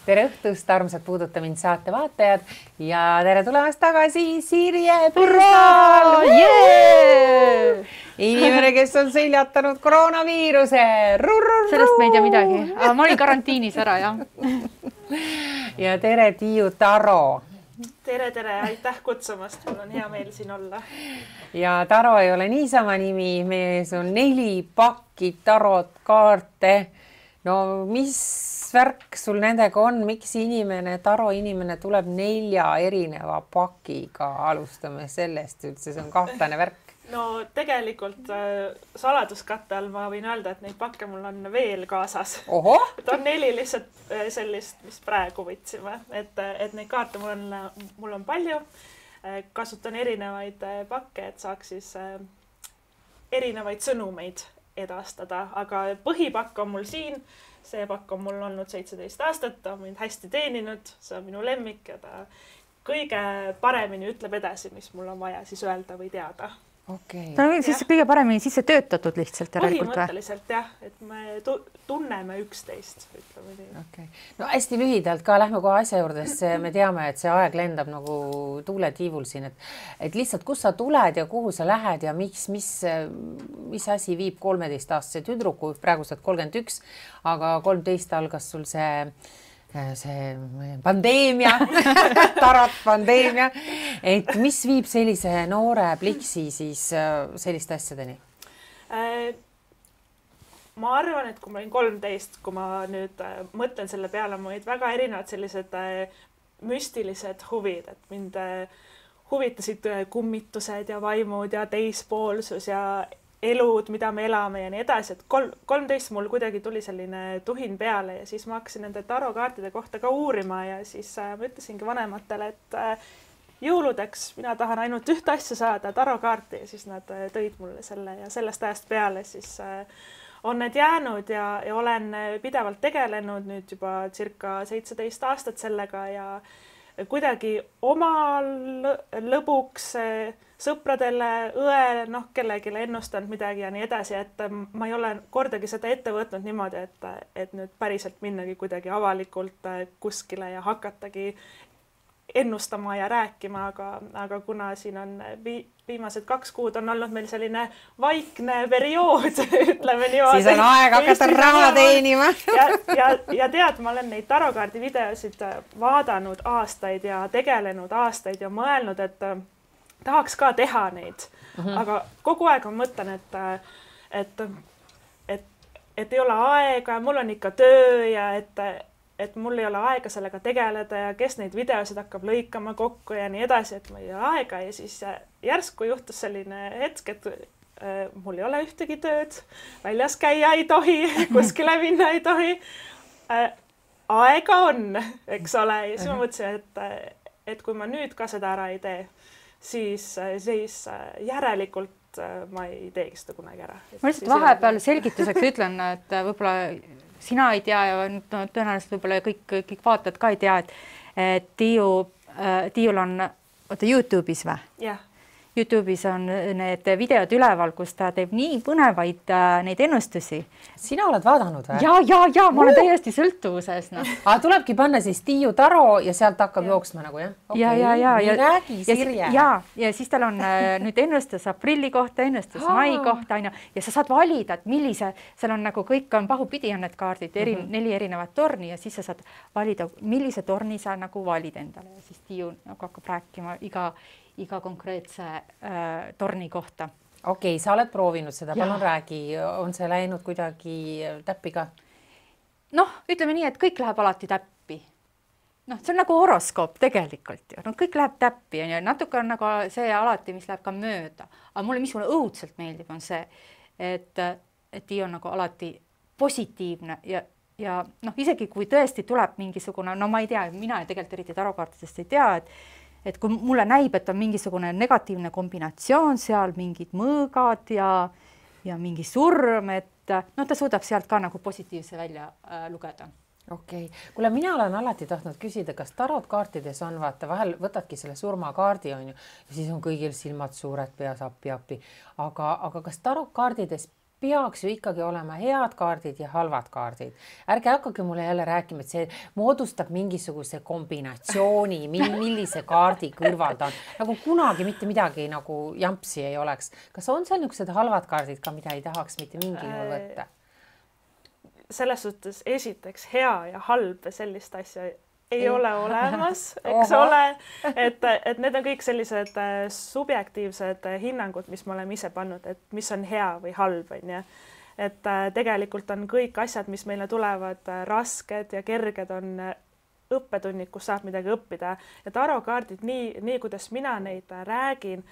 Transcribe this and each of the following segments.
tere õhtust, armsad Puuduta mind saate vaatajad ja tere tulemast tagasi Sirje Pürsal! Inimene, kes on seljatanud koroonaviiruse. Sellest me ei tea midagi. Ma olin karantiinis ära, jah. Ja tere Tiiu Taro. Tere, aitäh kutsumast. Mul on hea meel siin olla. Ja Taro ei ole niisama nimi. Mees on 4 pakki tarot kaarte. No mis värk sul nendega on? Miks Taro inimene tuleb 4 erineva pakiga? Alustame sellest üldse. See on kahtlane värk. No tegelikult saladuskatte all ma võin öelda, et neid pakke mul on veel kaasas. Oho! Et on 4 lihtsalt sellist, mis praegu võtsime. Et neid kaarte mul on palju. Kasutan erinevaid pakke, et saaks siis erinevaid sõnumeid edastada. Aga põhipakk on mul siin. See pakk on mul olnud 17 aastat. Ta on mind hästi teeninud. See on minu lemmik ja ta kõige paremini ütleb edasi, mis mul on vaja siis öelda või teada. Okay. Ta on siis kõige paremini sisse töötatud lihtsalt järelikult või? Põhimõtteliselt jah, et me tunneme üksteist, ütleme nii. Okay. No hästi lühidalt ka lähme kohe asja juurde, sest me teame, et see aeg lendab nagu tuuletiivul siin, et lihtsalt kus sa tuled ja kuhu sa lähed ja mis asi viib 13-aastase tüdruku, praegu saad 31, aga 13 algas sul see pandeemia, tarot pandeemia, et mis viib sellise noore pliksi siis selliste asjadeni? Ma arvan, et kui ma olin 13, kui ma nüüd mõtlen selle peale, ma olid väga erinevad sellised müstilised huvid, et mind huvitasid kummitused ja vaimud ja teispoolsus ja elud, mida me elame ja nii edasi, et 13 mul kuidagi tuli selline tuhin peale ja siis ma hakkasin nende tarokaartide kohta ka uurima ja siis ma ütlesingi vanematele, et jõuludeks mina tahan ainult ühte asja saada, tarokaarti ja siis nad tõid mulle selle ja sellest ajast peale siis on need jäänud ja olen pidevalt tegelenud nüüd juba circa 17 aastat sellega ja kuidagi oma lõbuks sõpradele, õele, kellelegi ennustanud midagi ja nii edasi, et ma ei ole kordagi seda ette võtnud niimoodi, et nüüd päriselt minnagi kuidagi avalikult kuskile ja hakatagi ennustama ja rääkima, aga kuna siin on viimased 2 kuud on olnud meil selline vaikne periood, ütleme niimoodi. Siis on aeg hakata raha teenima. Ja tead, ma olen neid tarokaardi videosid vaadanud aastaid ja tegelenud aastaid ja mõelnud, et tahaks ka teha neid, aga kogu aeg ma mõtlen, et ei ole aega ja mul on ikka töö ja et mul ei ole aega sellega tegeleda ja kes neid videosid hakkab lõikama kokku ja nii edasi, et ma ei ole aega ja siis järsku juhtus selline hetk, et mul ei ole ühtegi tööd, väljas käia ei tohi, kuskile minna ei tohi. Aega on, eks ole, ja siis ma mõtlesin, et kui ma nüüd ka seda ära ei tee, siis järelikult ma ei teegi seda kunagi ära. Ma lihtsalt vahepeal selgituseks ütlen, et võib-olla sina ei tea ja tõenäoliselt võib-olla kõik vaatajad ka ei tea, et Tiiul on YouTube'is või? Jah. YouTube'is on need videod üleval, kus ta teeb nii põnevaid neid ennustusi. Sina oled vaadanud või? Ja, ma olen täiesti sõltuvuses. No. Tulebki panna siis Tiiu Taro ja sealt hakkab jooksma nagu, jah? Okay. Nii räägi, Sirje. Ja siis tal on nüüd ennustus aprilli kohta, ennustus mai kohta, ja sa saad valida, et millise, seal on nagu kõik on pahupidi on need kaardid, 4 erinevat torni ja siis sa saad valida, millise torni sa nagu valid endale ja siis Tiiu nagu hakkab rääkima iga konkreetse torni kohta. Okei, sa oled proovinud seda, palun räägi, on see läinud kuidagi täppi ka? Noh, ütleme nii, et kõik läheb alati täppi. Noh, see on nagu horoskoop tegelikult ju. No, kõik läheb täppi ja natuke on nagu see alati, mis läheb ka mööda. Aga mulle mis mulle õudselt meeldib on see, et Tiiu on nagu alati positiivne ja noh, isegi kui tõesti tuleb mingisugune, no ma ei tea, mina tegelikult eriti tarokaartidest ei tea, et kui mulle näib, et on mingisugune negatiivne kombinatsioon seal, mingid mõõgad ja mingi surm, et no ta suudab sealt ka nagu positiivse välja lugeda. Okei. Kuule, mina olen alati tahtnud küsida, kas tarot kaartides on, vaata, vahel võtadki selle surmakaardi on ju, ja siis on kõigil silmad suured peas appi. Aga kas tarot kaartides peaks ju ikkagi olema head kaardid ja halvad kaardid. Ärge hakake mulle jälle rääkima, et see moodustab mingisuguse kombinatsiooni, millise kaardi kõrval ta on. Nagu kunagi mitte midagi nagu jampsi ei oleks. Kas on seal niisugused halvad kaardid ka, mida ei tahaks mitte mingil juhul võtta? Selles suhtes esiteks hea ja halb sellist asja ei ole olemas, eks ole, et need on kõik sellised subjektiivsed hinnangud, mis me oleme ise pannud, et mis on hea või halb, on ju. Et tegelikult on kõik asjad, mis meile tulevad rasked ja kerged, on õppetunnid, kus saab midagi õppida. Ja tarokaardid, nii kuidas mina neid räägin,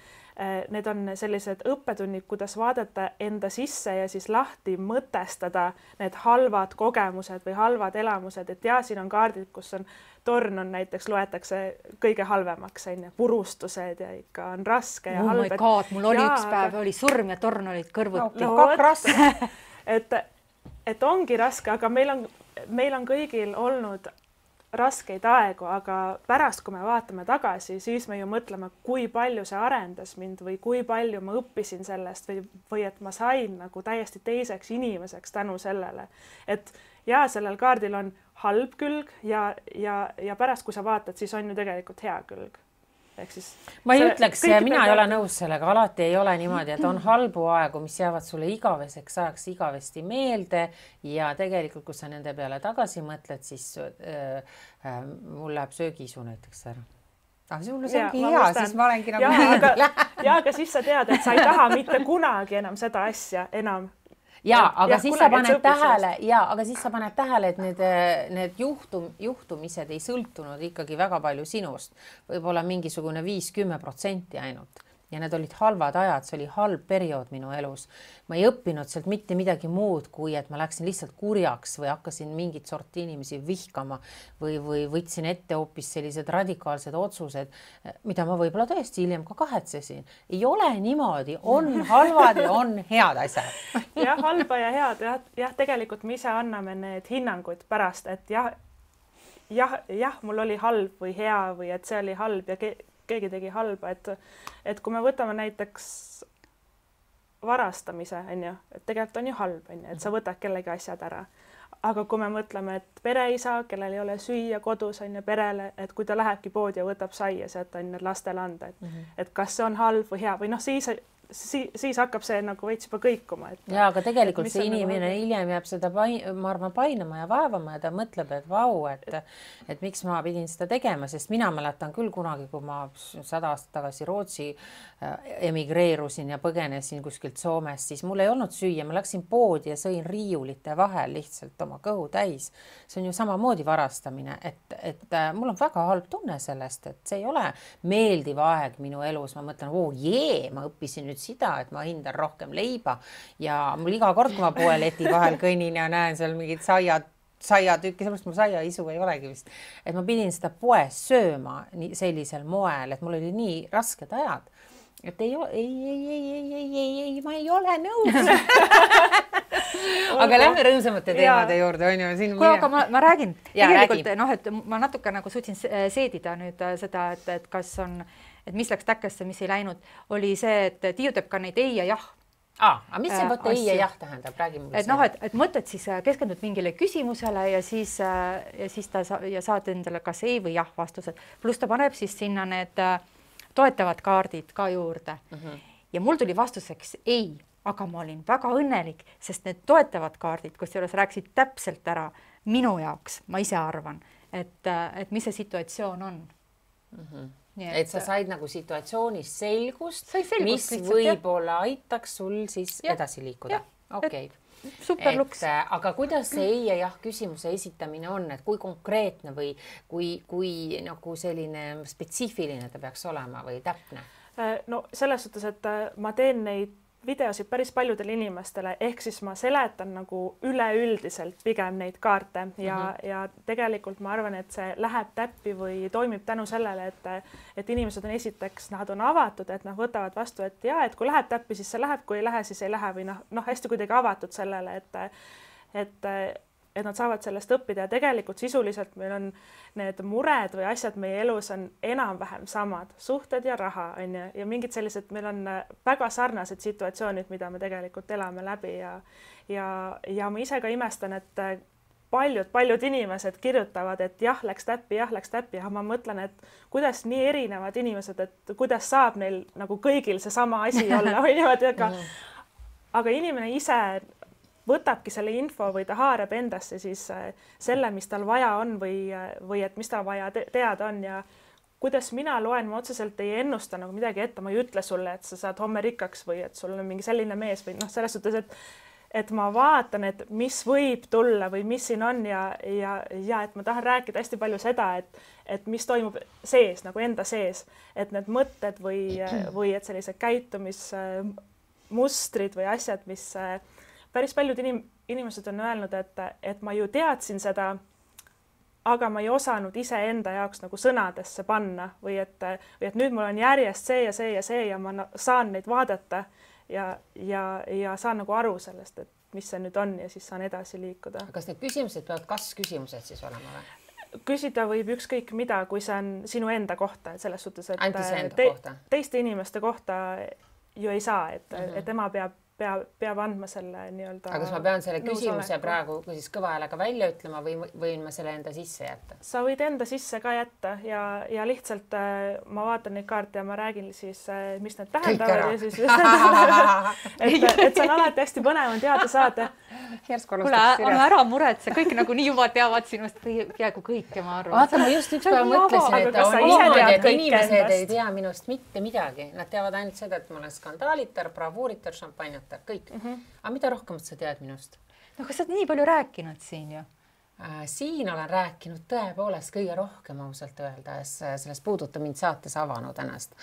need on sellised õppetunnid, kuidas vaadata enda sisse ja siis lahti mõtestada need halvad kogemused või halvad elamused, et ja siin on kaardid, kus on torn on näiteks, loetakse kõige halvemaks, purustused ja ikka on raske ja halb. Oh my god, mul oli üks päev, oli surm ja torn olid kõrvuti. Et ongi raske, aga meil on kõigil olnud raskeid aegu, aga pärast, kui me vaatame tagasi, siis me ju mõtleme, kui palju see arendas mind või kui palju ma õppisin sellest või et ma sain nagu täiesti teiseks inimeseks tänu sellele. Et ja sellel kaardil on halb külg ja pärast, kui sa vaatad, siis on ju tegelikult hea külg. Siis ma ei ütleks, mina ei ole nõus sellega, alati ei ole niimoodi, et on halbu aegu, mis jäävad sulle igaveseks ajaks igavesti meelde ja tegelikult, kui sa nende peale tagasi mõtled, siis mul läheb söögiisu näiteks ära. Sul see ongi hea, siis ma olengi nagu aga siis sa tead, et sa ei taha mitte kunagi enam seda asja enam. Aga siis sa paned tähele, et need juhtumised ei sõltunud ikkagi väga palju sinust. Võib-olla mingisugune 5-10% ainult. Ja need olid halvad ajad, see oli halb periood minu elus. Ma ei õppinud sealt mitte midagi muud, kui et ma läksin lihtsalt kurjaks või hakkasin mingit sorti inimesi vihkama või võtsin ette hoopis sellised radikaalsed otsused, mida ma võib-olla tõesti hiljem ka kahetsesin. Ei ole niimoodi, on halvad ja on head asjad. Jah, halba ja head. Jah, tegelikult me ise anname need hinnangud pärast, et jah, mul oli halb või hea või et see oli halb ja keegi tegi halba, et kui me võtame näiteks varastamise, et tegelikult on ju halb, et sa võtad kellegi asjad ära. Aga kui me mõtleme, et pereisa, kellel ei ole süüa kodus, perele, et kui ta lähebki poodi ja võtab saia, sealt on lastele anda, et kas see on halb või hea või siis hakkab see nagu veits juba kõikuma. Ja, aga tegelikult see inimene hiljem jääb seda, ma arvan, painama ja vaevama ja ta mõtleb, et vau, et miks ma pidin seda tegema, sest mina mäletan küll kunagi, kui ma 100 aastat tagasi Rootsi emigreerusin ja põgenesin kuskilt Soomest, siis mul ei olnud süüa, ma läksin poodi ja sõin riiulite vahel lihtsalt oma kõhu täis. See on ju samamoodi varastamine, et mul on väga halb tunne sellest, et see ei ole meeldiv aeg minu elus. Ma mõtlen, ma õppisin nüüd seda, et ma hindan rohkem leiba ja mul iga kord, kui ma poe leti vahel kõnnin ja näen seal mingid saiatükki, sellepärast mul saiaisu ei olegi vist, et ma pidin seda poes sööma sellisel moel, et mul oli nii rasked ajad, et ei, ma ei ole nõus. Aga lähme rõõmsamate teemade juurde, on ju. Aga ma räägin, tegelikult, et ma natuke nagu suutsin seedida nüüd seda, et kas on, et mis läks täkkesse, mis ei läinud, oli see, et Tiiu teeb ka neid ei ja jah. Aga mis see võtta ei ja jah tähendab? Räägi mulle et mõtled siis, keskendud mingile küsimusele ja siis saad endale kas ei või jah vastused. Pluss ta paneb siis sinna need toetavad kaardid ka juurde. Ja mul tuli vastuseks ei, aga ma olin väga õnnelik, sest need toetavad kaardid, kus juures rääksid täpselt ära minu jaoks, ma ise arvan, et mis see situatsioon on. Et sa said nagu situatsioonis selgust, mis võib-olla aitaks sul siis edasi liikuda. Okei. Super luks. Aga kuidas see ei ja jah küsimuse esitamine on, et kui konkreetne või kui nagu selline spetsiifiline ta peaks olema või täpne? No selles suhtes, et ma teen neid videosid päris paljudele inimestele, ehk siis ma seletan nagu üleüldiselt pigem neid kaarte ja tegelikult ma arvan, et see läheb täppi või toimib tänu sellele, et inimesed on esiteks, nad on avatud, et nad võtavad vastu, et et kui läheb täppi, siis see läheb, kui ei lähe, siis ei lähe või hästi kuidagi avatud sellele, et nad saavad sellest õppida ja tegelikult sisuliselt meil on need mured või asjad meie elus on enam-vähem samad, suhted ja raha on ju, ja mingid sellised, meil on väga sarnased situatsioonid, mida me tegelikult elame läbi ja ma ise ka imestan, et paljud inimesed kirjutavad, et jah, läks täppi, aga ma mõtlen, et kuidas nii erinevad inimesed, et kuidas saab neil nagu kõigil seesama asi olla või niimoodi, aga inimene ise võtabki selle info või ta haarab endasse siis selle, mis tal vaja on või et mis tal vaja teada on ja kuidas mina loen, ma otseselt ei ennusta nagu midagi ette, ma ei ütle sulle, et sa saad homme rikkaks või et sul on mingi selline mees või noh, selles suhtes, et ma vaatan, et mis võib tulla või mis siin on ja et ma tahan rääkida hästi palju seda, et mis toimub sees nagu enda sees, et need mõtted või et sellised käitumismustrid või asjad, mis päris paljud inimesed on öelnud, et ma ju teadsin seda, aga ma ei osanud iseenda jaoks nagu sõnadesse panna või et nüüd mul on järjest see ja see ja see ja ma saan neid vaadata ja saan nagu aru sellest, et mis see nüüd on ja siis saan edasi liikuda. Kas need küsimused peavad kas-küsimused siis olema või? Küsida võib ükskõik mida, kui see on sinu enda kohta, et selles suhtes, et teiste inimeste kohta ju ei saa, et ema peab andma selle nii-öelda. Aga kas ma pean selle küsimuse praegu siis kõva häälega välja ütlema või võin ma selle enda sisse jätta? Sa võid enda sisse ka jätta ja lihtsalt ma vaatan neid kaarte ja ma räägin siis, mis need tähendavad ja siis et see on alati hästi põnev on teada saada. Kuule, ära muretse, kõik nagu nii juba teavad sinust peaaegu kõike, ma arvan. Vaata, ma just üks päev mõtlesin, et on niimoodi, et inimesed ei tea minust mitte midagi. Nad teavad ainult seda, et ma olen skandaalitar, bravuuritar, šampanjatar, kõik. Aga mida rohkem sa tead minust? No kas sa oled nii palju rääkinud siin ju? Siin olen rääkinud tõepoolest kõige rohkem ausalt öeldes, sellest puuduta mind saates avanud ennast,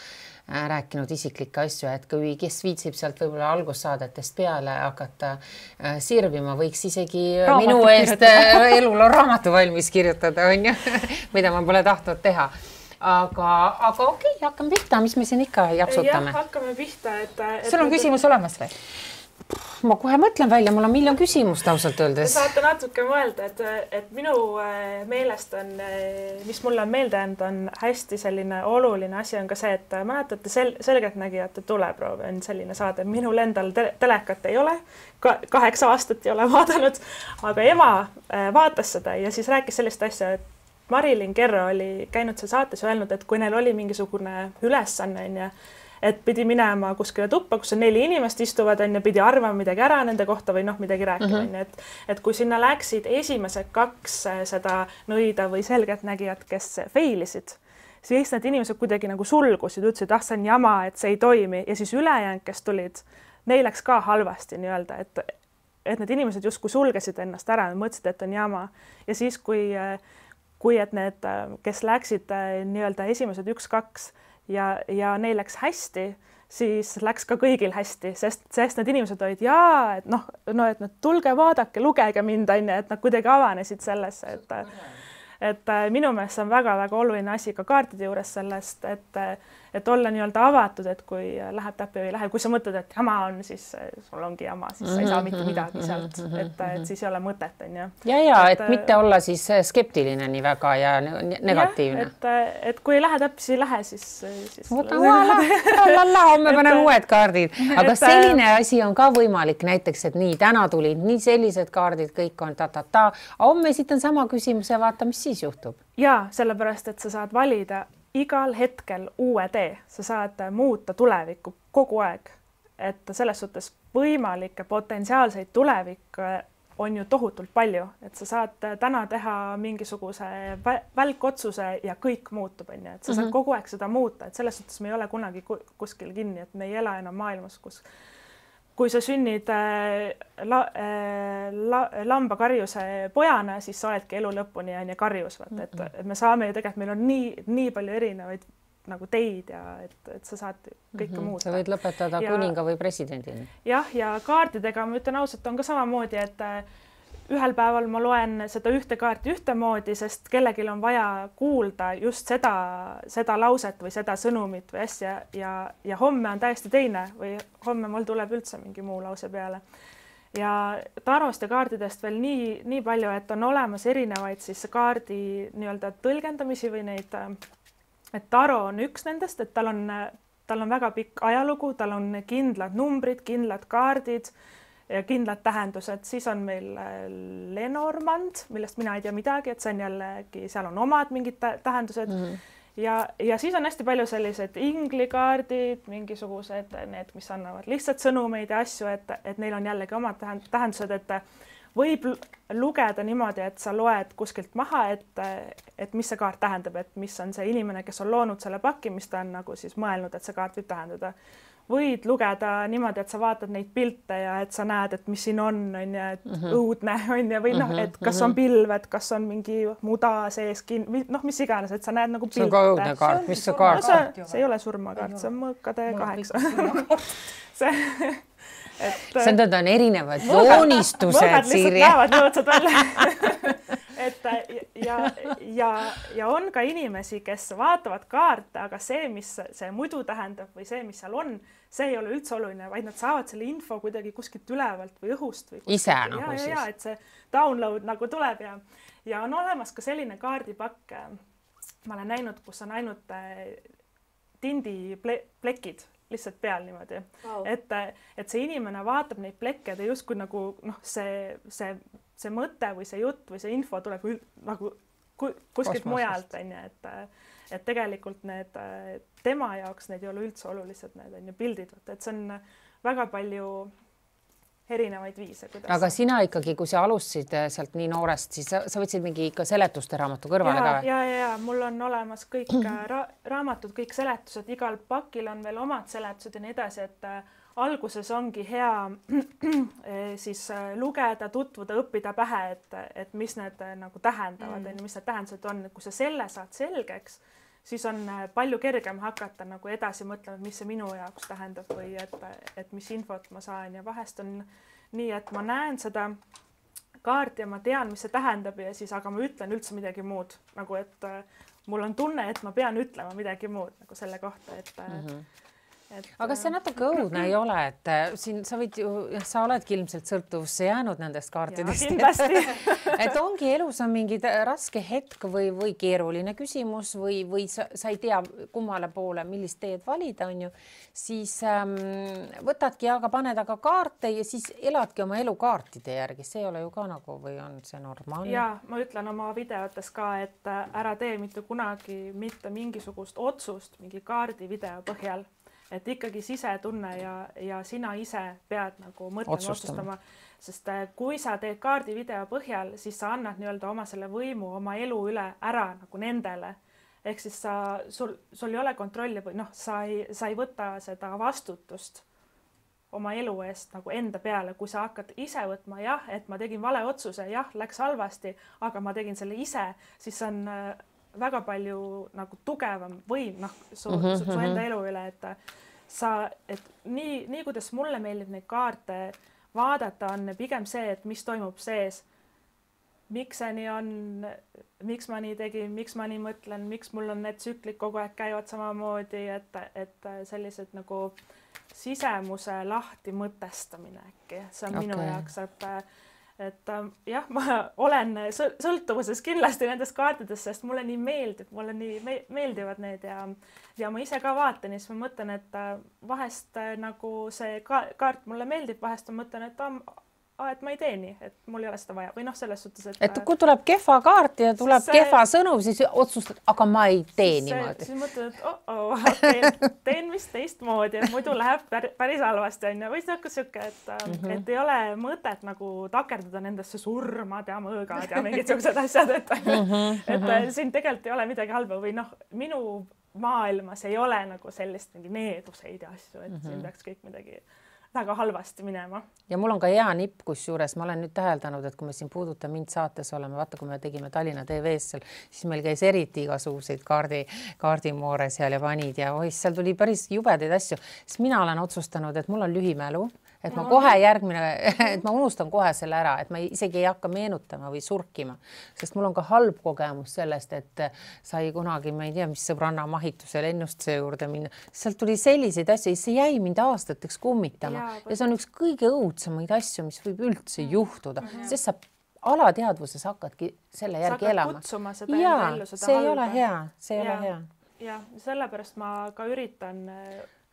rääkinud isiklikke asju, et kui kes viitsib sealt võib-olla algussaadetest peale hakata sirvima, võiks isegi minu eest elul on raamatu valmis kirjutada, on ju, mida ma pole tahtnud teha. Aga okei, hakkame pihta, mis me siin ikka japsutame? Jah, hakkame pihta, sul on küsimus olemas või? Ma kohe mõtlen välja, mul on miljon küsimust ausalt öeldes. Saate natuke mõelda, et minu meelest on, mis mulle on meelde jäänud, on hästi selline oluline asi on ka see, et mäletate Selgeltnägijate tuleproov on selline saade. Minul endal telekat ei ole, 8 aastat ei ole vaadanud, aga ema vaatas seda ja siis rääkis sellist asja, et Marilyn Kerro oli käinud seal saates ja öelnud, et kui neil oli mingisugune ülesanne, et pidi minema kuskile tuppa, kus on 4 inimest istuvad ja pidi arvama midagi ära nende kohta või midagi rääkima. Et kui sinna läksid esimesed 2 seda nõida või selgeltnägijat, kes feilisid, siis need inimesed kuidagi nagu sulgusid, ütlesid, see on jama, et see ei toimi ja siis ülejäänud, kes tulid, neil läks ka halvasti nii-öelda, et need inimesed justkui sulgesid ennast ära ja mõtlesid, et on jama ja siis kui et need, kes läksid nii-öelda esimesed 1-2 ja neil läks hästi, siis läks ka kõigil hästi, sest need inimesed olid et nad tulge, vaadake, lugege mind, et nad kuidagi avanesid sellesse, et minu meelest see on väga-väga oluline asi ka kaartide juures sellest, et olla nii-öelda avatud, et kui läheb täppi või ei lähe, kui sa mõtled, et jama on, siis sul ongi jama, siis sa ei saa mitte midagi sealt, et siis ei ole mõtet, on ju. Et mitte olla siis skeptiline nii väga ja negatiivne. Et kui ei lähe täppi, siis ei lähe, siis homme panen uued kaardid. Aga selline asi on ka võimalik näiteks, et nii täna tulid nii sellised kaardid, kõik on ta-ta-ta. Homme esitan sama küsimuse, vaata, mis siis juhtub. Ja sellepärast, et sa saad valida igal hetkel uue tee, sa saad muuta tulevikku kogu aeg, et selles suhtes võimalikke potentsiaalseid tulevikke on ju tohutult palju, et sa saad täna teha mingisuguse välkotsuse ja kõik muutub, et sa saad kogu aeg seda muuta, et selles suhtes me ei ole kunagi kuskil kinni, et me ei ela enam maailmas, kus kui sa sünnid lambakarjuse pojana, siis sa oledki elu lõpuni ja karjus, et me saame ju tegelikult, meil on nii palju erinevaid nagu teid ja et sa saad kõike muuta. Sa võid lõpetada kuninga või presidendina. Jah, ja kaartidega ma ütlen ausalt, on ka samamoodi, et ühel päeval ma loen seda ühte kaarti ühtemoodi, sest kellelgi on vaja kuulda just seda lauset või seda sõnumit või asja ja homme on täiesti teine või homme mul tuleb üldse mingi muu lause peale. ja tarost ja kaardidest veel nii palju, et on olemas erinevaid siis kaardi nii-öelda tõlgendamisi või neid, et taro on üks nendest, et tal on väga pikk ajalugu, tal on kindlad numbrid, kindlad kaardid ja kindlad tähendused, siis on meil Lenormand, millest mina ei tea midagi, et see on jällegi, seal on omad mingid tähendused ja siis on hästi palju sellised inglikaardid, mingisugused need, mis annavad lihtsalt sõnumeid ja asju, et neil on jällegi omad tähendused, et võib lugeda niimoodi, et sa loed kuskilt maha, et mis see kaart tähendab, et mis on see inimene, kes on loonud selle paki, mis ta on nagu siis mõelnud, et see kaart võib tähendada. Võid lugeda niimoodi, et sa vaatad neid pilte ja et sa näed, et mis siin on ja et õudne on ja või noh, et kas on pilved, kas on mingi muda sees, noh, mis iganes, et sa näed nagu pilte. See on ka õudne kaart, mis see kaart? See ei ole surmakaart, see on mõõkade 8. See on erinevad joonistused, Siiri. Mõõgad näevad nõudsad välja. Ja on ka inimesi, kes vaatavad kaarte, aga see, mis see muidu tähendab või see, mis seal on, see ei ole üldse oluline, vaid nad saavad selle info kuidagi kuskilt ülevalt või õhust. Või ise nagu siis. Ja, et see download nagu tuleb ja on olemas ka selline kaardipakk, ma olen näinud, kus on ainult tindiplekid lihtsalt peal niimoodi, et see inimene vaatab neid plekke ja justkui nagu see mõte või see jutt või see info tuleb nagu kuskilt mujalt, et tegelikult need tema jaoks need ei ole üldse olulised, need pildid, et see on väga palju erinevaid viise. Aga sina ikkagi, kui sa alustasid sealt nii noorest, siis sa võtsid mingi ikka seletuste raamatu kõrvale ka? Ja, mul on olemas kõik raamatud, kõik seletused, igal pakil on veel omad seletused ja nii edasi, et alguses ongi hea siis lugeda, tutvuda, õppida pähe, et mis need nagu tähendavad, mis need tähendused on, et kui sa selle saad selgeks, siis on palju kergem hakata nagu edasi mõtlema, mis see minu jaoks tähendab või et mis infot ma saan ja vahest on nii, et ma näen seda kaarti ja ma tean, mis see tähendab ja siis, aga ma ütlen üldse midagi muud, nagu et mul on tunne, et ma pean ütlema midagi muud nagu selle kohta, aga see natuke õudne ei ole, et siin sa võid ju, sa oledki ilmselt sõltuvusse jäänud nendest kaartidest. Et ongi elus on mingi raske hetk või keeruline küsimus või sa ei tea kummale poole, millist teed valida, on ju, siis võtadki, aga paned aga kaarte ja siis eladki oma elu kaartide järgi. See ei ole ju ka nagu või on see normaalne? Ja ma ütlen oma videotes ka, et ära tee mitte kunagi mitte mingisugust otsust mingi kaardi video põhjal. Et ikkagi sisetunne ja sina ise pead nagu mõtlema, otsustama, sest kui sa teed kaardi video põhjal, siis sa annad nii-öelda oma selle võimu, oma elu üle ära nagu nendele. Ehk siis sul ei ole kontrolli või sa ei võta seda vastutust oma elu eest nagu enda peale, kui sa hakkad ise võtma, jah, et ma tegin vale otsuse, jah, läks halvasti, aga ma tegin selle ise, siis on väga palju nagu tugevam võim su enda elu üle, et nii kuidas mulle meeldib neid kaarte vaadata, on pigem see, et mis toimub sees, miks see nii on, miks ma nii tegin, miks ma nii mõtlen, miks mul on need tsüklid kogu aeg käivad samamoodi, et sellised nagu sisemuse lahti mõtestamine äkki, see on minu jaoks, et jah, ma olen sõltuvuses kindlasti nendest kaartidest, sest mulle nii meeldib, mulle nii meeldivad need ja ma ise ka vaatan ja siis ma mõtlen, et vahest nagu see kaart mulle meeldib, vahest ma mõtlen, et ma ei tee nii, et mul ei ole seda vaja või selles suhtes, et kui tuleb kehva kaart ja tuleb kehva sõnum, siis otsustad, aga ma ei tee niimoodi. Siis mõtled, et teen vist teistmoodi, et muidu läheb päris halvasti on ja või siuke, et ei ole mõtet nagu takerduda nendesse surmad ja mõõgad ja mingid siuksed asjad, et siin tegelikult ei ole midagi halba või minu maailmas ei ole nagu sellist mingi needuseid ja asju, et siin peaks kõik midagi väga halvasti minema. Ja mul on ka hea nipp, kus juures ma olen nüüd täheldanud, et kui me siin Puuduta mind saates oleme, vaata, kui me tegime Tallinna TV-s seal, siis meil käis eriti igasuguseid kaardimoore seal ja vanid ja seal tuli päris jubedaid asju. Siis mina olen otsustanud, et mul on lühimälu, et ma kohe et ma unustan kohe selle ära, et ma isegi ei hakka meenutama või surkima, sest mul on ka halb kogemus sellest, et sai kunagi, ma ei tea, mis sõbranna mahituse lennustuse juurde minna. Sealt tuli selliseid asju, see jäi mind aastateks kummitama ja see on üks kõige õudsemaid asju, mis võib üldse juhtuda, sest sa alateadvuses hakkadki selle järgi elama. See ei ole hea, see ei ole hea. Ja sellepärast ma ka üritan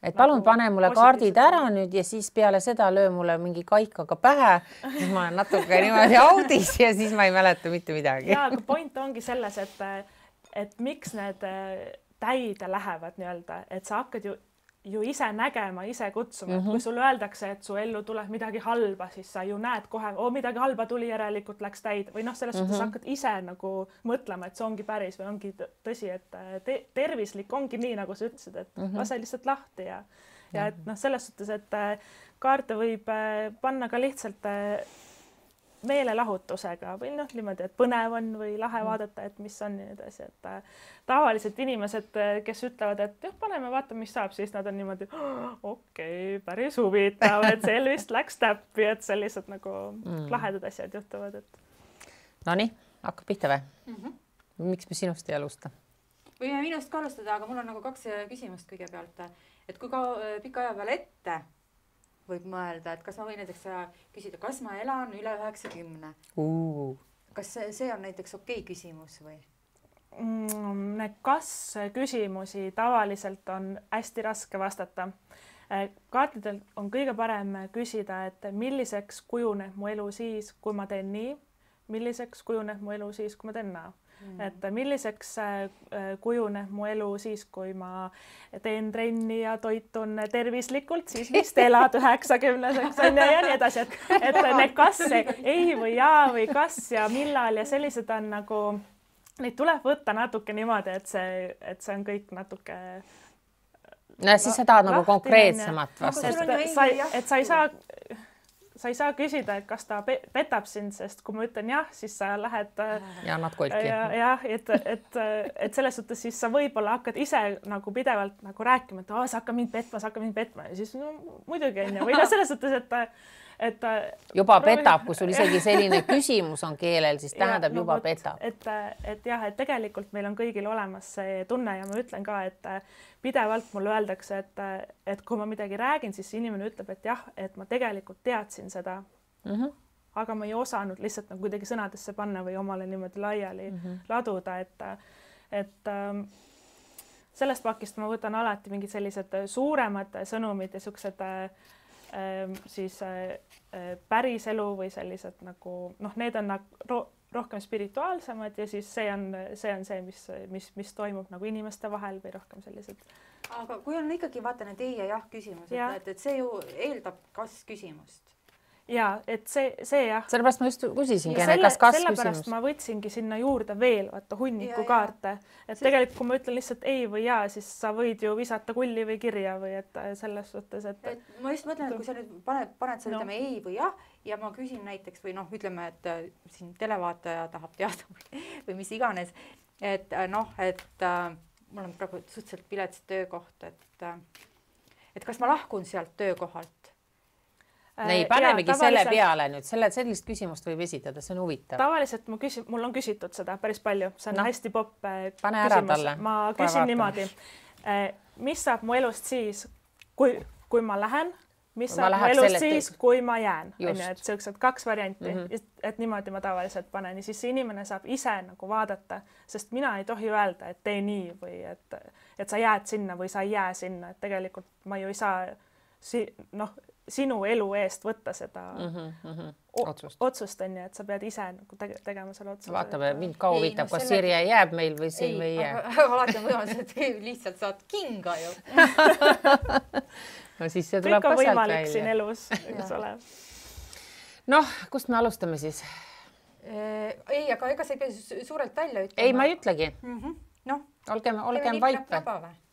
et palun pane mulle kaardid ära nüüd ja siis peale seda löö mulle mingi kaikaga pähe, siis ma olen natuke niimoodi audis ja siis ma ei mäleta mitte midagi. Ja, aga point ongi selles, et miks need täide lähevad nii-öelda, et sa hakkad ju ise nägema, ise kutsuma, et kui sulle öeldakse, et su ellu tuleb midagi halba, siis sa ju näed kohe, midagi halba tuli, järelikult läks täide või selles suhtes hakkad ise nagu mõtlema, et see ongi päris või ongi tõsi, et tervislik ongi nii, nagu sa ütlesid, et lase lihtsalt lahti ja et selles suhtes, et kaarte võib panna ka lihtsalt meelelahutusega või niimoodi, et põnev on või lahe vaadata, et mis on ja nii edasi, et tavaliselt inimesed, kes ütlevad, et paneme, vaatame, mis saab, siis nad on niimoodi, okei, päris huvitav, et see vist läks täppi, et sellised nagu lahedad asjad juhtuvad, et. Nonii, hakkab pihta või? Miks me sinust ei alusta? Võime minust ka alustada, aga mul on nagu 2 küsimust kõigepealt, et kui ka pika aja peale ette võib mõelda, et kas ma võin näiteks küsida, kas ma elan üle 90? Kas see on näiteks okei küsimus või? Kas küsimusi tavaliselt on hästi raske vastata. Kaartidel on kõige parem küsida, et milliseks kujuneb mu elu siis, kui ma teen nii, milliseks kujuneb mu elu siis, kui ma teen naa. Et milliseks kujuneb mu elu siis, kui ma teen trenni ja toitun tervislikult, siis vist elad 90-seks ja nii edasi, et need kas ei või jaa või kas ja millal ja sellised on nagu, neid tuleb võtta natuke niimoodi, et see on kõik natuke. No siis sa tahad nagu konkreetsemat vastata. Et sa ei saa küsida, et kas ta petab sind, sest kui ma ütlen jah, siis sa lähed ja annad kolki. Jah, et selles suhtes siis sa võib-olla hakkad ise nagu pidevalt nagu rääkima, et sa hakkad mind petma ja siis muidugi on ja või selles suhtes, et juba petab, kui sul isegi selline küsimus on keelel, siis tähendab juba petab. Et jah, et tegelikult meil on kõigil olemas see tunne ja ma ütlen ka, et pidevalt mulle öeldakse, et kui ma midagi räägin, siis inimene ütleb, et jah, et ma tegelikult teadsin seda, aga ma ei osanud lihtsalt nagu kuidagi sõnadesse panna või omale niimoodi laiali laduda, et sellest pakist ma võtan alati mingid sellised suuremad sõnumid ja siuksed siis päris elu või sellised nagu, need on rohkem spirituaalsemad ja siis see on see, mis toimub nagu inimeste vahel või rohkem sellised. Aga kui on ikkagi vaata need ei ja jah küsimused, et see ju eeldab kas küsimust. Ja, et see jah. Sellepärast ma just küsisingi, kas sellepärast ma võtsingi sinna juurde veel hunniku kaarte. Et tegelikult, kui ma ütlen lihtsalt ei või jaa, siis sa võid ju visata kulli või kirja või et selles suhtes, et ma just mõtlen, et kui sa nüüd paned sa ütleme ei või jah ja ma küsin näiteks või ütleme, et siin televaataja tahab teada või mis iganes, et mul on praegu suhteliselt pilets töökoht, et kas ma lahkun sealt töökohalt? Ei, panemegi selle peale nüüd, sellist küsimust võib esitada, see on huvitav. Tavaliselt mul on küsitud seda päris palju, see on hästi popp küsimus. Ma küsin niimoodi, mis saab mu elust siis, kui ma lähen, mis saab mu elust siis, kui ma jään. Et sellised 2 varianti, et niimoodi ma tavaliselt panen ja siis inimene saab ise nagu vaadata, sest mina ei tohi öelda, et tee nii või et sa jääd sinna või sa ei jää sinna, et tegelikult ma ju ei saa sinu elu eest võtta seda otsust on ja et sa pead ise nagu tegema selle otsuse. Vaatame, mind ka huvitab, kas Sirje jääb meil või siin või ei jää. Alati on võimalus, et lihtsalt saad kinga ju. No siis see tuleb ka sealt välja. Kõik on võimalik siin elus, eks ole. Noh, kust me alustame siis? Ei, aga ega sa ei pea suurelt välja ütlema. Ei, ma ei ütlegi. Olgem vaipe.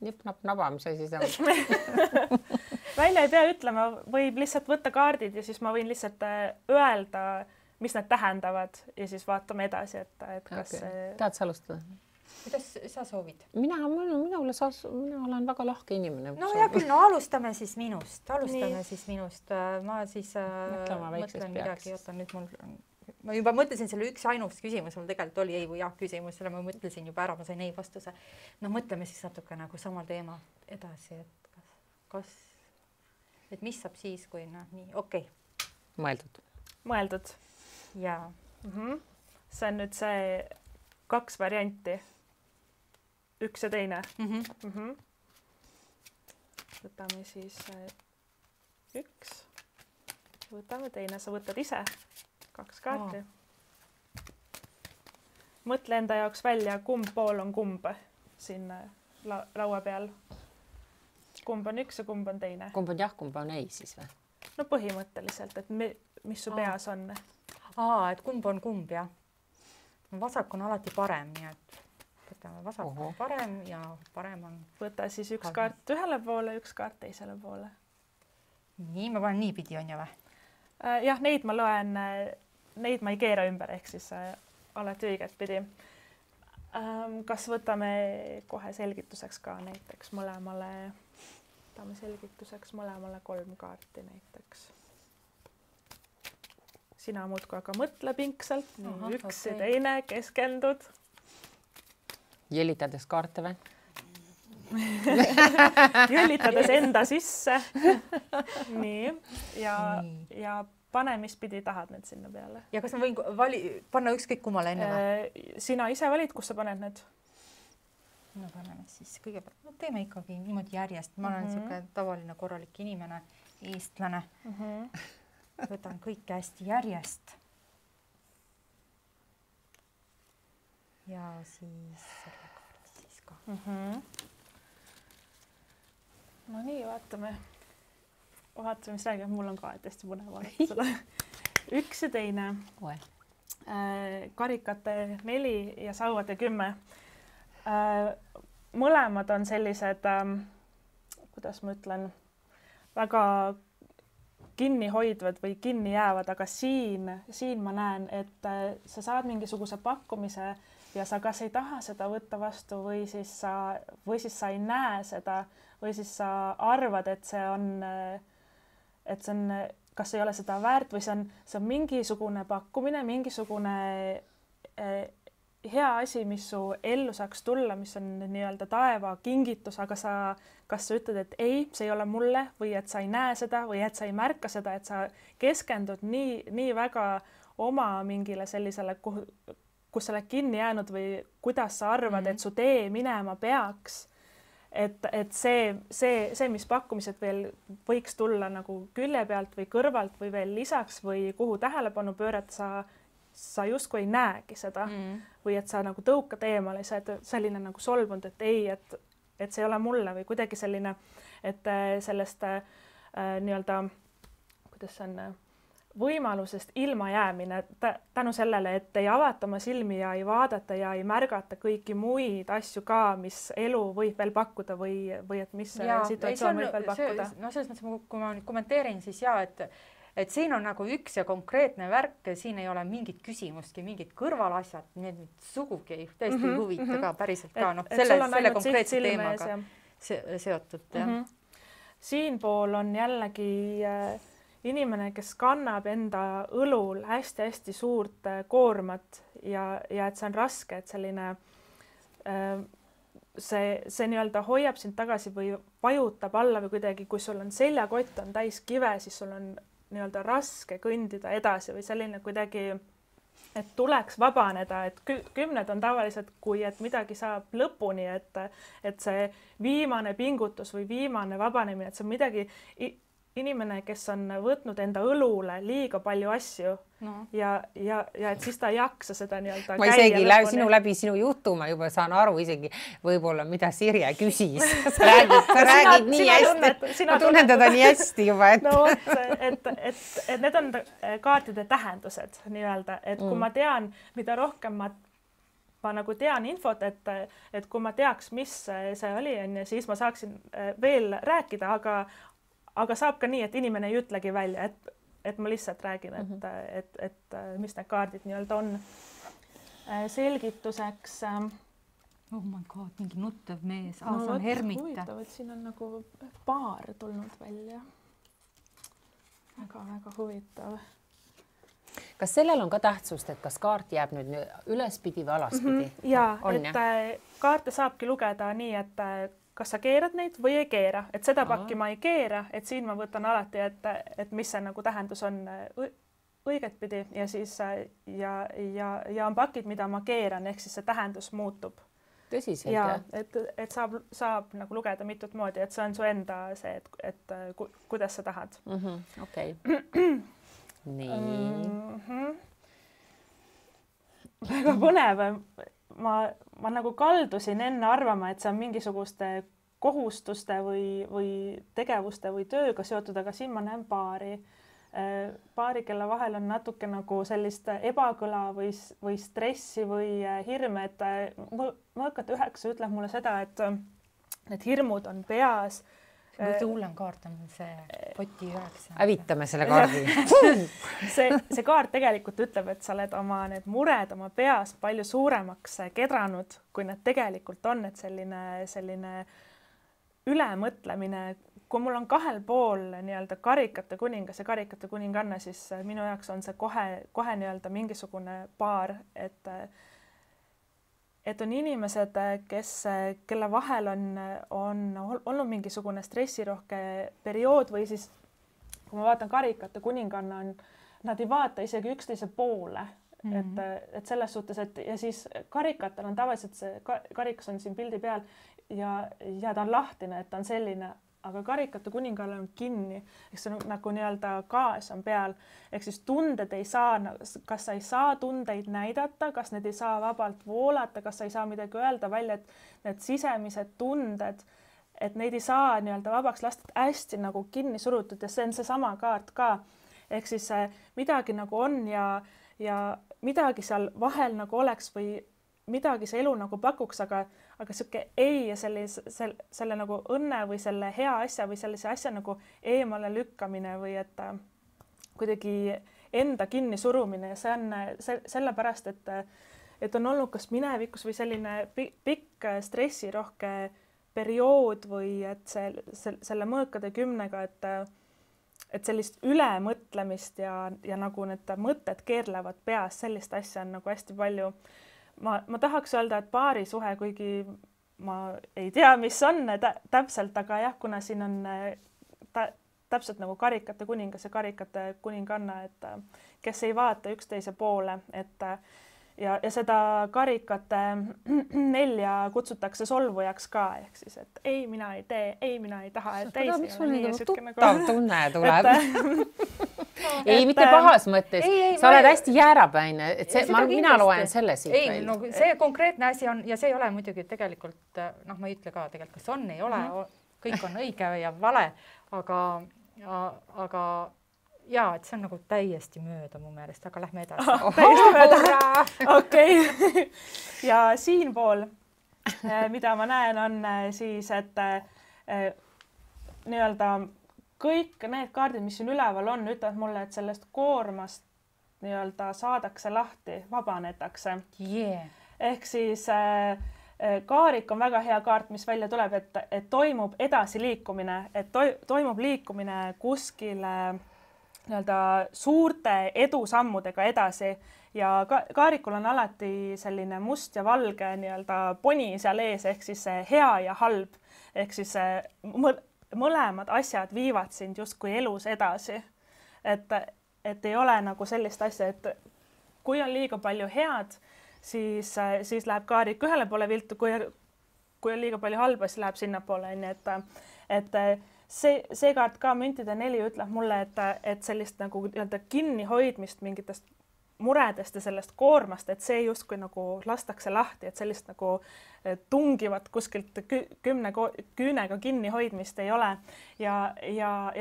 Nip-nap-naba, mis asi see on? Välja ei pea ütlema, võib lihtsalt võtta kaardid ja siis ma võin lihtsalt öelda, mis need tähendavad ja siis vaatame edasi, et kas Tahad sa alustada? kuidas sa soovid? mina olen väga lahke inimene. No hea küll, no alustame siis minust. Ma siis mõtlen midagi, otan nüüd ma juba mõtlesin selle üks ainus küsimus, mul tegelikult oli ei või jah küsimus, selle ma mõtlesin juba ära, ma sain ei vastuse. No mõtleme siis natuke nagu samal teema edasi, et et mis saab siis, kui nii, okei. Mõeldud. Jaa. See on nüüd see 2 varianti. Üks ja teine. Võtame siis 1. Võtame teine, sa võtad ise 2 kaarti. Mõtle enda jaoks välja, kumb pool on kumb siin laua peal. Kumb on 1 ja kumb on teine. Kumb on jah, kumb on ei siis või? No põhimõtteliselt, et mis su peas on. Et kumb on kumb, jah. Vasak on alati parem, nii et võtame vasak on parem ja parem on... Võta siis 1 kaart ühele poole, 1 kaart teisele poole. Nii, ma panen niipidi on ju või? Jah, neid ma loen, neid ma ei keera ümber, ehk siis alati õiget pidi. Kas võtame kohe selgituseks ka näiteks mõlemale 3 kaarti näiteks. Sina muudku aga mõtle pingsalt, üks ja teine, keskendud. Jälitades kaarte või? Jälitades enda sisse. Nii, ja pane, mis pidi tahad need sinna peale. Ja kas ma võin panna ükskõik kummale enne või? Sina ise valid, kus sa paned need? No paneme siis kõigepealt, teeme ikkagi niimoodi järjest. Ma olen niisugune tavaline korralik inimene, eestlane. Võtan kõike hästi järjest. Ja siis selle kaardi siis ka. No nii, vaatame, mis räägib. Mul on ka hästi põnev vaadata seda. 1 ja teine. Karikate 4 ja sauade 10. Mõlemad on sellised, kuidas ma ütlen, väga kinni hoidvad või kinni jäävad, aga siin ma näen, et sa saad mingisuguse pakkumise ja sa kas ei taha seda võtta vastu või siis sa ei näe seda või siis sa arvad, et see on, kas ei ole seda väärt või see on mingisugune pakkumine, mingisugune hea asi, mis su ellu saaks tulla, mis on nii-öelda taeva kingitus, aga kas sa ütled, et ei, see ei ole mulle või et sa ei näe seda või et sa ei märka seda, et sa keskendud nii väga oma mingile sellisele, kus sa oled kinni jäänud või kuidas sa arvad, et su tee minema peaks. Et see, mis pakkumised veel võiks tulla nagu külje pealt või kõrvalt või veel lisaks või kuhu tähelepanu pöörata, sa justkui ei näegi seda või et sa nagu tõukad eemale, sa oled selline nagu solvunud, et ei, et see ei ole mulle või kuidagi selline, et sellest nii-öelda, kuidas see on, võimalusest ilma jäämine tänu sellele, et ei avata oma silmi ja ei vaadata ja ei märgata kõiki muid asju ka, mis elu võib veel pakkuda või et mis situatsioon võib veel pakkuda. No selles mõttes, kui ma kommenteerin, siis et siin on nagu üks ja konkreetne värk, siin ei ole mingit küsimustki, mingid kõrvalasjad, need sugugi täiesti huvita ka, päriselt ka, selle konkreetse teemaga seotud. Siinpool on jällegi inimene, kes kannab enda õlul hästi-hästi suurt koormat ja et see on raske, et selline see nii-öelda hoiab sind tagasi või vajutab alla või kuidagi, kui sul on seljakott on täis kive, siis sul on nii-öelda raske kõndida edasi või selline kuidagi, et tuleks vabaneda, et 10 on tavaliselt, kui et midagi saab lõpuni, et see viimane pingutus või viimane vabanemine, et see on midagi inimene, kes on võtnud enda õlule liiga palju asju ja et siis ta ei jaksa seda nii-öelda ma isegi läbi sinu jutu ma juba saan aru isegi võib-olla, mida Sirje küsis. Sa räägid nii hästi. Ma tunnen teda nii hästi juba. Et need on kaartide tähendused nii-öelda, et kui ma tean, mida rohkem ma nagu tean infot, et kui ma teaks, mis see oli, siis ma saaksin veel rääkida, aga saab ka nii, et inimene ei ütlegi välja, et ma lihtsalt räägin, et mis need kaardid nii-öelda on. Selgituseks Oh my god, mingi nuttev mees, see on Hermita. Huvitav, et siin on nagu paar tulnud välja. Väga huvitav. Kas sellel on ka tähtsust, et kas kaart jääb nüüd ülespidi või alaspidi? Jaa, et kaarte saabki lugeda nii, et kas sa keerad neid või ei keera, et seda pakki ma ei keera, et siin ma võtan alati, et mis see nagu tähendus on õiget pidi ja siis ja on pakid, mida ma keeran, ehk siis see tähendus muutub. Tõsiselt, jah? Et saab nagu lugeda mitut moodi, et see on su enda see, et kuidas sa tahad. Okei. Nii. Väga põnev. Ma nagu kaldusin enne arvama, et see on mingisuguste kohustuste või tegevuste või tööga seotud, aga siin ma näen paari, kelle vahel on natuke nagu sellist ebakõla või stressi või hirme, et mõõkate 9 ütleb mulle seda, et need hirmud on peas. Kõige hullem kaart on see poti 9. Hävitame selle kaardi. See kaart tegelikult ütleb, et sa oled oma need mured oma peas palju suuremaks kedranud, kui need tegelikult on, et selline ülemõtlemine. Kui mul on 2 pool nii-öelda karikate kuningas ja karikate kuninganna, siis minu jaoks on see kohe nii-öelda mingisugune paar, et on inimesed, kelle vahel on olnud mingisugune stressirohke periood või siis, kui ma vaatan karikate kuninganna, nad ei vaata isegi üksteise poole. Et selles suhtes, et ja siis karikatel on tavaliselt see karikas on siin pildi peal ja ta on lahtine, et ta on selline, aga karikate kuningale on kinni, ehk see nagu nii-öelda gaas on peal, ehk siis tunded ei saa, kas sa ei saa tundeid näidata, kas need ei saa vabalt voolata, kas sa ei saa midagi öelda välja, et need sisemised tunded, et neid ei saa nii-öelda vabaks lasta, hästi nagu kinni surutud ja see on seesama kaart ka, ehk siis midagi nagu on ja midagi seal vahel nagu oleks või midagi see elu nagu pakuks, aga sihuke ei ja selle nagu õnne või selle hea asja või sellise asja nagu eemale lükkamine või et kuidagi enda kinni surumine ja see on sellepärast, et on olnud kas minevikus või selline pikk stressirohke periood või et selle mõõkade 10-ga, et sellist ülemõtlemist ja nagu need mõtted keerlevad peas, sellist asja on nagu hästi palju. Ma tahaks öelda, et paarisuhe, kuigi ma ei tea, mis on täpselt, aga jah, kuna siin on täpselt nagu karikate kuningas ja karikate kuninganna, et kes ei vaata üksteise poole, et ja seda karikate 4 kutsutakse solvujaks ka, ehk siis, et ei, mina ei tee, ei, mina ei taha, et ei, miks mul nagu tuttav tunne tuleb? Ei, mitte pahas mõttes. Sa oled hästi jäärapäine, et mina loen selle siit välja. No, see konkreetne asi on ja see ei ole muidugi tegelikult, ma ei ütle ka tegelikult, kas on, ei ole, kõik on õige ja vale, aga jaa, et see on nagu täiesti mööda mu meelest, aga lähme edasi. Täiesti mööda. Okei. Ja siinpool, mida ma näen, on siis, et nii-öelda kõik need kaardid, mis siin üleval on, ütlevad mulle, et sellest koormast nii-öelda saadakse lahti, vabanetakse. Ehk siis kaarik on väga hea kaart, mis välja tuleb, et toimub edasi liikumine, et toimub liikumine kuskile nii-öelda suurte edusammudega edasi ja kaarikul on alati selline must ja valge nii-öelda poni seal ees, ehk siis hea ja halb, ehk siis mõlemad asjad viivad sind justkui elus edasi. Et ei ole nagu sellist asja, et kui on liiga palju head, siis läheb kaarik ühele poole viltu, kui on liiga palju halba, siis läheb sinnapoole. Et see kaart ka müntide 4 ütleb mulle, et sellist nagu kinnihoidmist mingitest muredest ja sellest koormast, et see justkui nagu lastakse lahti, et sellist nagu tungivat kuskilt 10 küünega kinnihoidmist ei ole. Ja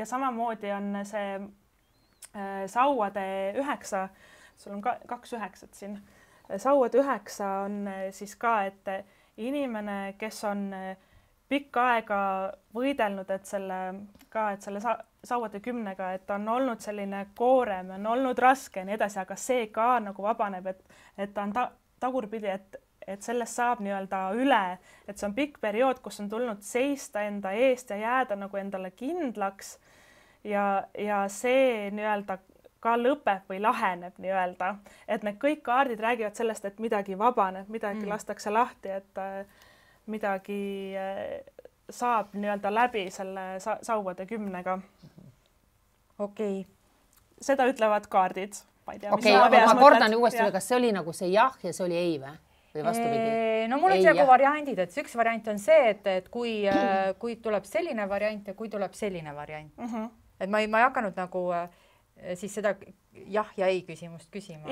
samamoodi on see sauade 9, sul on 2 9 siin, sauade 9 on siis ka, et inimene, kes on pikka aega võidelnud, et selle sauade 10-ga, et on olnud selline koorem, on olnud raske ja nii edasi, aga see ka nagu vabaneb, et ta on tagurpidi, et sellest saab nii-öelda üle, et see on pikk periood, kus on tulnud seista enda eest ja jääda nagu endale kindlaks ja see nii-öelda ka lõpeb või laheneb nii-öelda, et need kõik kaardid räägivad sellest, et midagi vabaneb, midagi lastakse lahti, et midagi saab nii-öelda läbi selle sauade 10-ga. okei. Seda ütlevad kaardid. Okei, ma kordan uuesti, kas see oli nagu see jah ja see oli ei või vastupidi? No mul on nagu variandid, et üks variant on see, et kui tuleb selline variant ja kui tuleb selline variant. Et ma ei hakanud nagu siis seda jah ja ei küsimust küsima.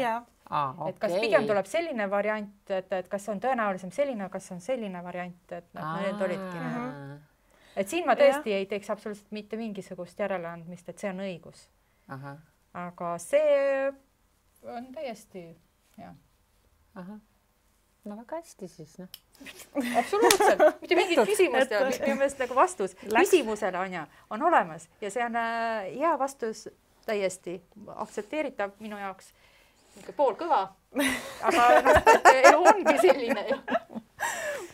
Et kas pigem tuleb selline variant, et kas on tõenäolisem selline, kas on selline variant, et need olidki. Et siin ma tõesti ei teeks absoluutselt mitte mingisugust järeleandmist, et see on õigus. Aga see on täiesti, jah. No väga hästi siis, noh. Absoluutselt, mitte mingit küsimust ja minu meelest nagu vastus küsimusele on olemas ja see on hea vastus täiesti aktsepteeritav minu jaoks. Pool kõva, aga elu ongi selline.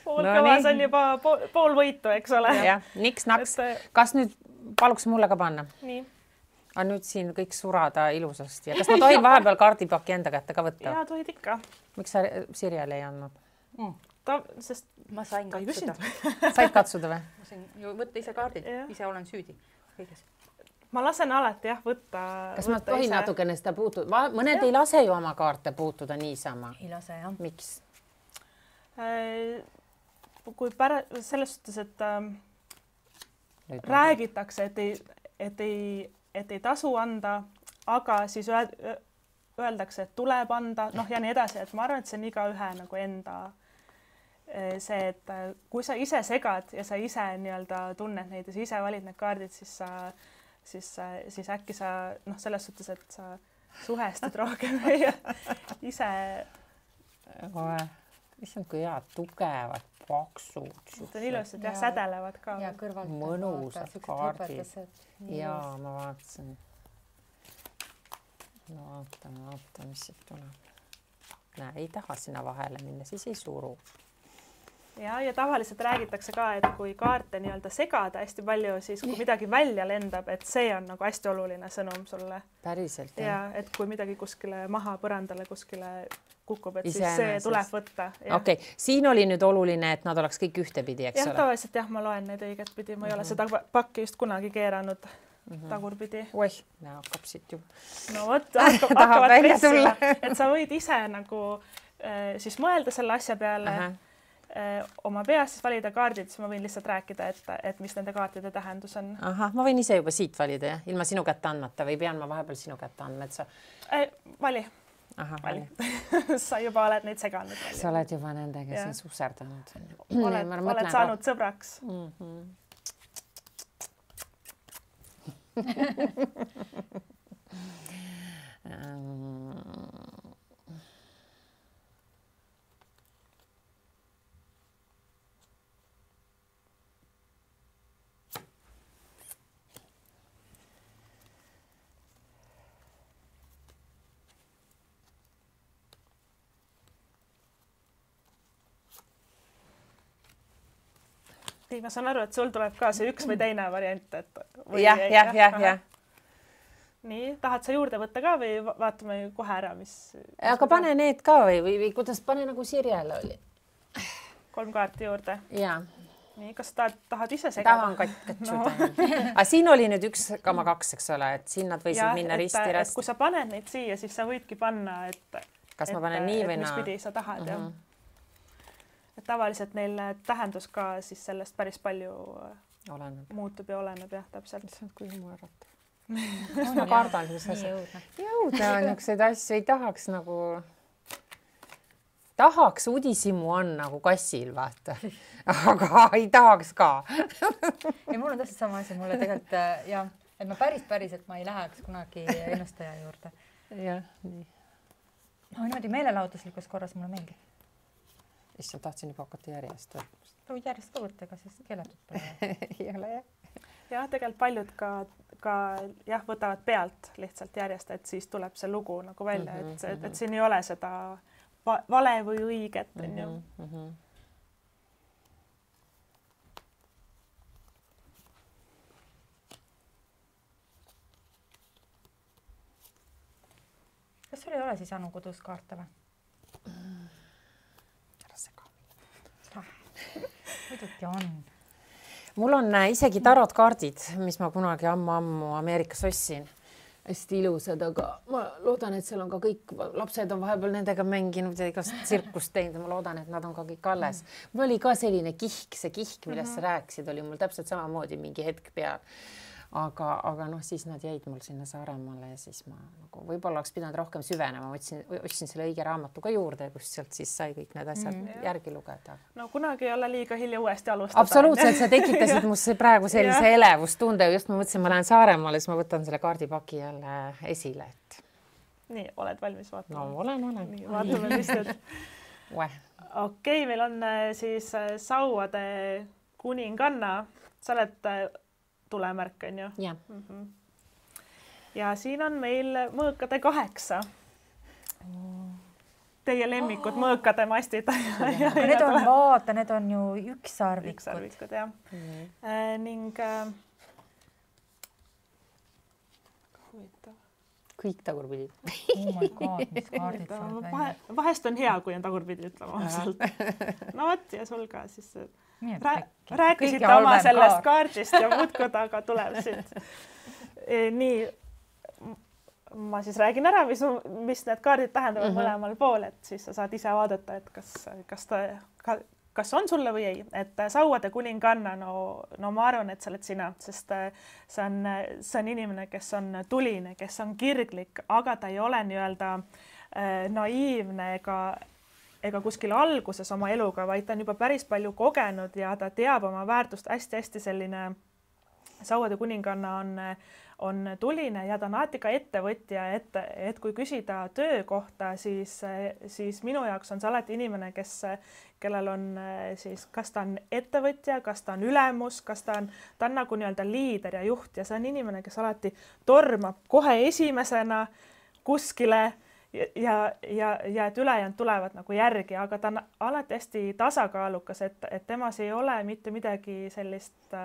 Pool kõva, see on juba pool võitu, eks ole. Jah, niks-naks. Kas nüüd paluks mulle ka panna? Nii. Aga nüüd siin kõik surada ilusasti. Ja kas ma tohin vahepeal kaardipaki enda kätte ka võtta? Jaa, tohid ikka. Miks sa Sirjale ei andnud? Sest ma sain katsuda. Said katsuda või? Ma sain ju võtta ise kaardid, ise olen süüdi kõiges. Ma lasen alati võtta. Kas ma tohin natukene seda puutuda? Mõned ei lase ju oma kaarte puutuda niisama. Ei lase, jah. Miks? Kui selles suhtes, et räägitakse, et ei tasu anda, aga siis öeldakse, et tuleb anda, ja nii edasi, et ma arvan, et see on igaühe nagu enda see, et kui sa ise segad ja sa ise nii-öelda tunned neid ja sa ise valid need kaardid, siis äkki sa selles suhtes, et sa suhestud rohkem ja ise. Issand, kui head, tugevad, paksud. Need on ilusad ja sädelevad ka. Ja kõrvalt. Mõnusad kaardid. Jaa, ma vaatasin. No vaata, mis siit tuleb. Näe, ei taha sinna vahele minna, siis ei suru. Ja tavaliselt räägitakse ka, et kui kaarte nii-öelda segada hästi palju, siis kui midagi välja lendab, et see on nagu hästi oluline sõnum sulle. Päriselt, jah. Ja et kui midagi kuskile maha põrandale kuskile kukub, et siis see tuleb võtta. Okei, siin oli nüüd oluline, et nad oleks kõik ühtepidi, eks ole? Tavaliselt ma loen neid õiget pidi, ma ei ole seda pakki just kunagi keeranud tagurpidi. Oih, hakkab siit ju. No vot, hakkavad pressima, et sa võid ise nagu siis mõelda selle asja peale, oma peas siis valida kaardid, siis ma võin lihtsalt rääkida, et mis nende kaartide tähendus on. Ma võin ise juba siit valida, jah? Ilma sinu kätte andmata või pean ma vahepeal sinu kätte andma, et sa... Vali. Vali. Sa juba oled neid seganud. Sa oled juba nendega siin suserdanud. Oled saanud sõbraks. Ma saan aru, et sul tuleb ka see üks või teine variant, et... Jah. Nii, tahad sa juurde võtta ka või vaatame kohe ära, mis... Aga pane need ka või kuidas pane nagu Sirjele oli? 3 kaarti juurde. Jaa. Nii, kas tahad ise segada? Tahan katsuda. Aga siin oli nüüd 1,2, eks ole, et siin nad võisid minna risti-rasti. Kui sa paned neid siia, siis sa võidki panna, et... Kas ma panen nii või naa? Mis pidi sa tahad, jah. Et tavaliselt neil tähendus ka siis sellest päris palju muutub ja oleneb, jah, täpselt. Issand, kui mõõrata. Ma kardan, mis asja. Jõuda niisuguseid asju ei tahaks nagu... Tahaks udisimu on nagu kassil, vaata. Aga ei tahaks ka. Ja mul on täpselt sama asi, mulle tegelikult, jah, et ma päris, et ma ei läheks kunagi ennustaja juurde. Jah, nii. No niimoodi meelelahutuslikus korras mulle meeldib. Issand, tahtsin juba hakata järjest. Võid järjest ka võtta, ega siis keelatud pole. Ei ole, jah. Jah, tegelikult paljud ka võtavad pealt lihtsalt järjest, et siis tuleb see lugu nagu välja, et siin ei ole seda vale või õiget, on ju. Kas sul ei ole siis Anu kodus kaarte või? Ära sega. Muidugi on. Mul on isegi tarotkaardid, mis ma kunagi ammu Ameerikas ostsin. Hästi ilusad, aga ma loodan, et seal on ka kõik, lapsed on vahepeal nendega mänginud ja igast tsirkust teinud ja ma loodan, et nad on ka kõik alles. Mul oli ka selline kihk, see kihk, millest sa rääkisid, oli mul täpselt samamoodi mingi hetk peal. Aga noh, siis nad jäid mul sinna Saaremaale ja siis ma nagu võib-olla oleks pidanud rohkem süvenema, otsin selle õige raamatu ka juurde, kus sealt siis sai kõik need asjad järgi lugeda. No kunagi ei ole liiga hilja uuesti alustada. Absoluutselt, sa tekitasid musse praegu sellise elevustunde, just ma mõtlesin, ma lähen Saaremaale, siis ma võtan selle kaardipaki jälle esile. Nii, oled valmis vaatama? No olen. Nii, vaatame, mis nüüd. Okei, meil on siis Sauade kuninganna. Sa oled tulemärk, on ju? Ja. Ja siin on meil mõõkade 8. Teie lemmikud mõõkade mastid. Need on, vaata, need on ju ükssarvikud. Ükssarvikud, jah. Ning huvitav. Kõik tagurpidi. Oh my god, mis kaardid saad välja. Vahest on hea, kui on tagurpidi ütlema. No võt, ja sul ka siis rääkisite oma sellest kaardist ja muudkud, aga tuleb siit. Nii, ma siis räägin ära, mis need kaardid tähendavad mõlemal pool, et siis sa saad ise vaadata, et kas on sulle või ei. Et Sauade kuninganna, no ma arvan, et sa oled sina, sest see on inimene, kes on tuline, kes on kirglik, aga ta ei ole nii-öelda naiivne ega kuskil alguses oma eluga, vaid ta on juba päris palju kogenud ja ta teab oma väärtust hästi-hästi selline. Sauade kuninganna on tuline ja ta on alati ka ettevõtja, et kui küsida töö kohta, siis minu jaoks on see alati inimene, kellel on siis, kas ta on ettevõtja, kas ta on ülemus, kas ta on nagu nii-öelda liider ja juht ja see on inimene, kes alati tormab kohe esimesena kuskile ja et ülejäänud tulevad nagu järgi, aga ta on alati hästi tasakaalukas, et temas ei ole mitte midagi sellist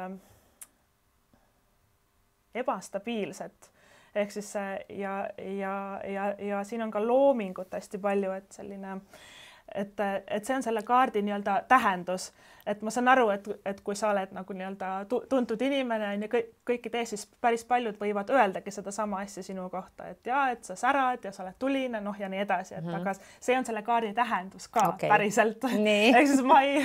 ebastabiilset. Ehk siis ja siin on ka loomingut hästi palju, et selline, et see on selle kaardi nii-öelda tähendus, et ma saan aru, et kui sa oled nagu nii-öelda tuntud inimene ja kõiki tee, siis päris paljud võivad öeldagi seda sama asja sinu kohta, et sa särad ja sa oled tuline, noh ja nii edasi, et aga see on selle kaardi tähendus ka päriselt. Ehk siis ma ei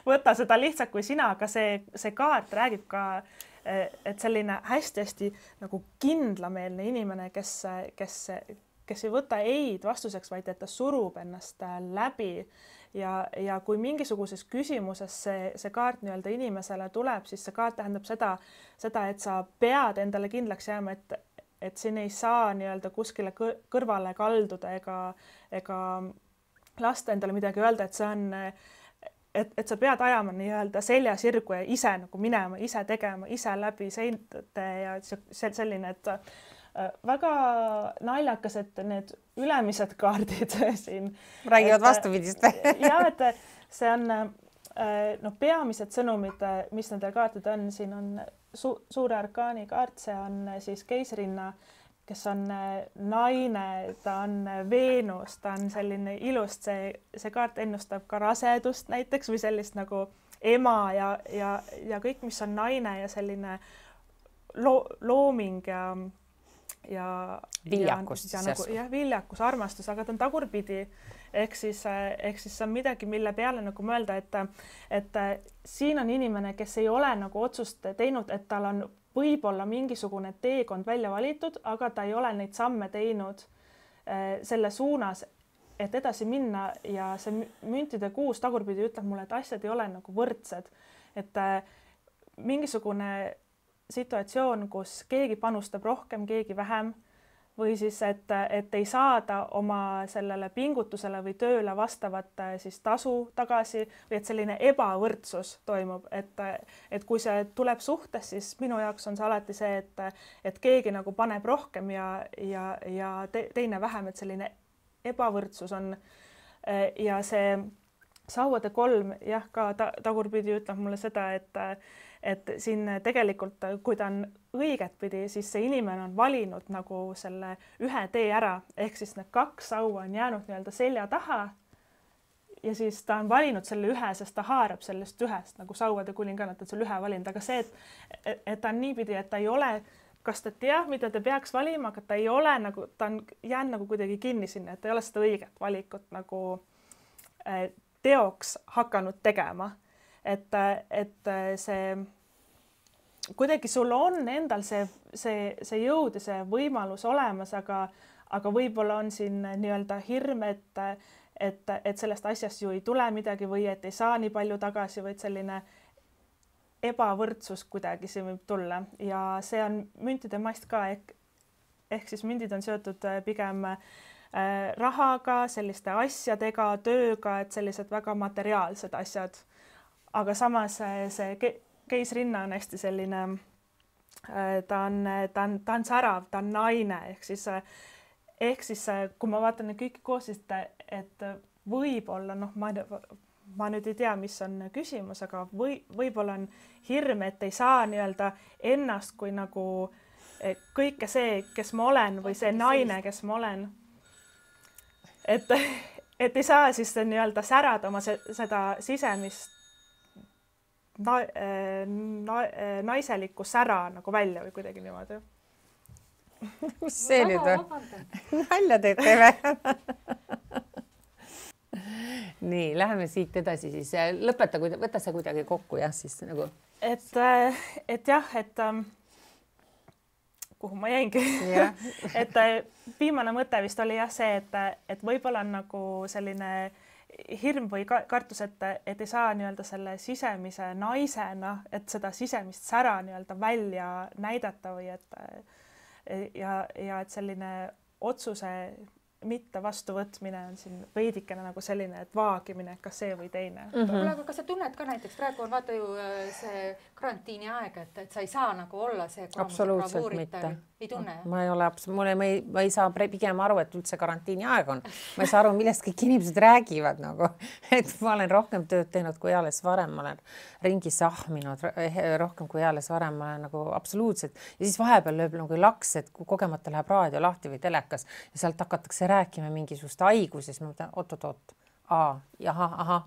võta seda lihtsalt kui sina, aga see kaart räägib ka, et selline hästi-hästi nagu kindlameelne inimene, kes ei võta eid vastuseks, vaid et ta surub ennast läbi ja kui mingisuguses küsimuses see kaart nii-öelda inimesele tuleb, siis see kaart tähendab seda, et sa pead endale kindlaks jääma, et siin ei saa nii-öelda kuskile kõrvale kalduda ega lasta endale midagi öelda, et see on et sa pead ajama nii-öelda selja sirgu ja ise nagu minema, ise tegema, ise läbi seinte ja selline, et väga naljakas, et need ülemised kaardid siin räägivad vastupidist. Ja, et see on peamised sõnumid, mis nendel kaartid on, siin on suure arkaani kaart, see on siis keisrinna, kes on naine, ta on Veenus, ta on selline ilust, see kaart ennustab ka rasedust näiteks või sellist nagu ema ja kõik, mis on naine ja selline looming ja viljakus, viljakus, armastus, aga ta on tagurpidi, ehk siis see on midagi, mille peale nagu mõelda, et siin on inimene, kes ei ole nagu otsust teinud, et tal on võib-olla mingisugune teekond välja valitud, aga ta ei ole neid samme teinud selle suunas, et edasi minna ja see müntide kuus tagurpidi ütleb mulle, et asjad ei ole nagu võrdsed, et mingisugune situatsioon, kus keegi panustab rohkem, keegi vähem või siis, et ei saada oma sellele pingutusele või tööle vastavat siis tasu tagasi või et selline ebavõrdsus toimub, et kui see tuleb suhtes, siis minu jaoks on see alati see, et keegi nagu paneb rohkem ja teine vähem, et selline ebavõrdsus on ja see sauade 3 jah, ka tagurpidi ütleb mulle seda, et siin tegelikult, kui ta on õiget pidi, siis see inimene on valinud nagu selle ühe tee ära, ehk siis need 2 saua on jäänud nii-öelda selja taha ja siis ta on valinud selle ühe, sest ta haarab sellest ühest nagu sauade kuninganna, et selle ühe valinud, aga see, et ta on niipidi, et ta ei ole, kas ta teab, mida ta peaks valima, aga ta ei ole nagu, ta on jäänud nagu kuidagi kinni sinna, et ta ei ole seda õiget valikut nagu teoks hakanud tegema. Et see kuidagi sul on endal see jõud ja see võimalus olemas, aga võib-olla on siin nii-öelda hirm, et sellest asjast ju ei tule midagi või et ei saa nii palju tagasi, vaid selline ebavõrdsus kuidagi siin võib tulla ja see on müntide mast ka ehk siis mündid on seotud pigem rahaga, selliste asjadega, tööga, et sellised väga materiaalsed asjad. Aga samas see keisrinna on hästi selline, ta on särav, ta on naine, ehk siis kui ma vaatan neid kõiki koos, et võib-olla, ma nüüd ei tea, mis on küsimus, aga võib-olla on hirm, et ei saa nii-öelda ennast kui nagu kõike see, kes ma olen või see naine, kes ma olen. Et ei saa siis nii-öelda särada oma seda sisemist naiselikku sära nagu välja või kuidagi niimoodi. Mis see nüüd on? Nalja teete või? Nii, läheme siit edasi siis. Lõpeta, võta see kuidagi kokku, jah, siis nagu. Et jah, kuhu ma jäingi. Et viimane mõte vist oli jah see, et võib-olla on nagu selline hirm või kartus, et ei saa nii-öelda selle sisemise naisena, et seda sisemist sära nii-öelda välja näidata või ja et selline otsuse mitte vastuvõtmine on siin veidikene nagu selline, et vaagimine, kas see või teine. Aga kas sa tunned ka näiteks, praegu on vaata ju see karantiini aeg, et sa ei saa nagu olla see absoluutselt mitte. Ei tunne? Ma ei ole, ma ei saa pigem aru, et üldse karantiini aeg on. Ma ei saa aru, millest kõik inimesed räägivad nagu, et ma olen rohkem tööd teinud kui alles varem, ma olen ringi sahminud rohkem kui alles varem, ma olen nagu absoluutselt ja siis vahepeal lööb nagu laks, et kui kogemata läheb raadio lahti või telekas ja sealt hakatakse rääkima mingisugust haiguses, ma mõtlen, oot.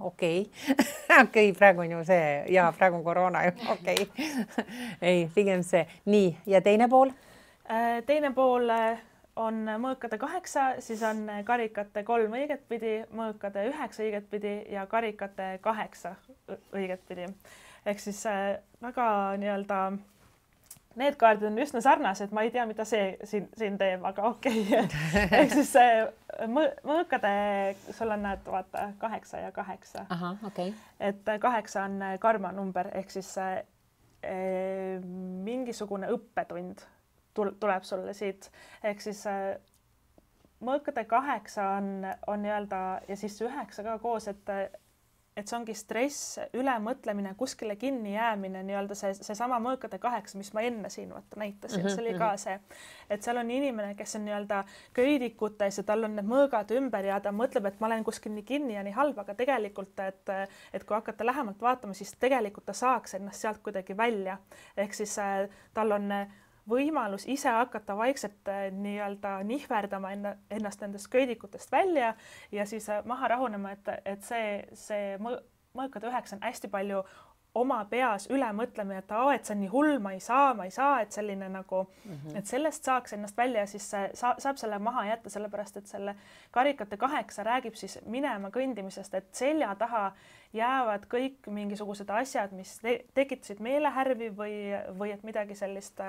Okei, praegu on ju see ja praegu on koroona ju, okei. Ei, pigem see. Nii, ja teine pool? Teine pool on mõõkade 8, siis on karikate 3 õigetpidi, mõõkade 9 õigetpidi ja karikate 8 õigetpidi. Ehk siis väga nii-öelda need kaardid on üsna sarnased, ma ei tea, mida see siin teeb, aga okei. Ehk siis mõõkade, sul on näed, vaata, 8 ja 8. Aha, okei. Et 8 on karma number, ehk siis mingisugune õppetund tuleb sulle siit. Ehk siis mõõkade 8 on nii-öelda ja siis 9 ka koos, et see ongi stress, ülemõtlemine, kuskile kinni jäämine, nii-öelda see sama mõõkade 8, mis ma enne siin näitasin, see oli ka see, et seal on inimene, kes on nii-öelda köidikutes ja tal on need mõõgad ümber ja ta mõtleb, et ma olen kuskil nii kinni ja nii halb, aga tegelikult, et kui hakata lähemalt vaatama, siis tegelikult ta saaks ennast sealt kuidagi välja. Ehk siis tal on võimalus ise hakata vaikselt nii-öelda nihverdama ennast nendest köidikutest välja ja siis maha rahunema, et see mõõkade 9 on hästi palju oma peas üle mõtlemine, et see on nii hull, ma ei saa, et selline nagu, et sellest saaks ennast välja ja siis saab selle maha jätta, sellepärast, et selle karikate 8 räägib siis minema kõndimisest, et selja taha jäävad kõik mingisugused asjad, mis tekitasid meelehärvi või et midagi sellist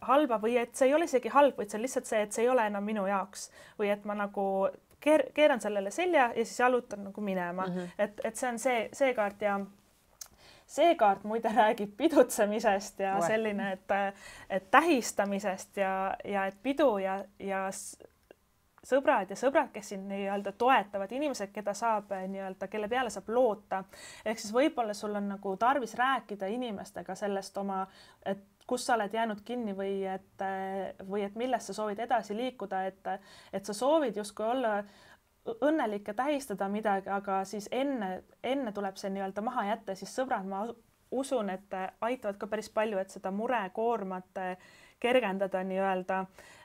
halba või et see ei ole isegi halb, vaid see on lihtsalt see, et see ei ole enam minu jaoks või et ma nagu keeran sellele selja ja siis jalutan nagu minema. Et see on see kaart ja see kaart muide räägib pidutsemisest ja selline, et tähistamisest ja et pidu ja sõbrad, kes siin nii-öelda toetavad inimesed, keda saab nii-öelda, kelle peale saab loota. Ehk siis võib-olla sul on nagu tarvis rääkida inimestega sellest oma, et kus sa oled jäänud kinni või et millest sa soovid edasi liikuda, et sa soovid justkui olla õnnelik ja tähistada midagi, aga siis enne tuleb see nii-öelda maha jätta, siis sõbrad, ma usun, et aitavad ka päris palju, et seda murekoormat kergendada nii-öelda,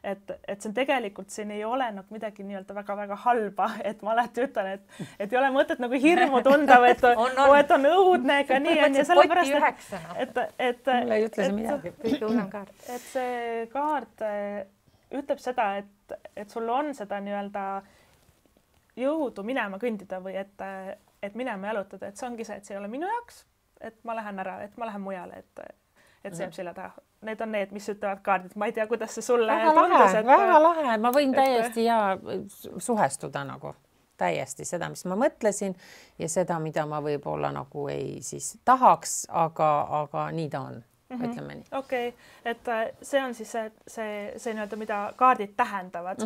et see on tegelikult, siin ei ole nagu midagi nii-öelda väga-väga halba, et ma alati ütlen, et ei ole mõtet nagu hirmu tunda, või et on õudne, ega nii on ja sellepärast, et mulle ei ütle see midagi. Kõige hullem kaart. Et see kaart ütleb seda, et sul on seda nii-öelda jõudu minema kõndida või et minema jalutada, et see ongi see, et see ei ole minu jaoks, et ma lähen ära, et ma lähen mujale, et see jääb selja taha. Need on need, mis ütlevad kaardid. Ma ei tea, kuidas see sulle tundus. Väga lahe. Ma võin täiesti suhestuda nagu täiesti seda, mis ma mõtlesin ja seda, mida ma võib-olla nagu ei siis tahaks, aga nii ta on. Ütleme nii. Okei, et see on siis see nii-öelda, mida kaardid tähendavad.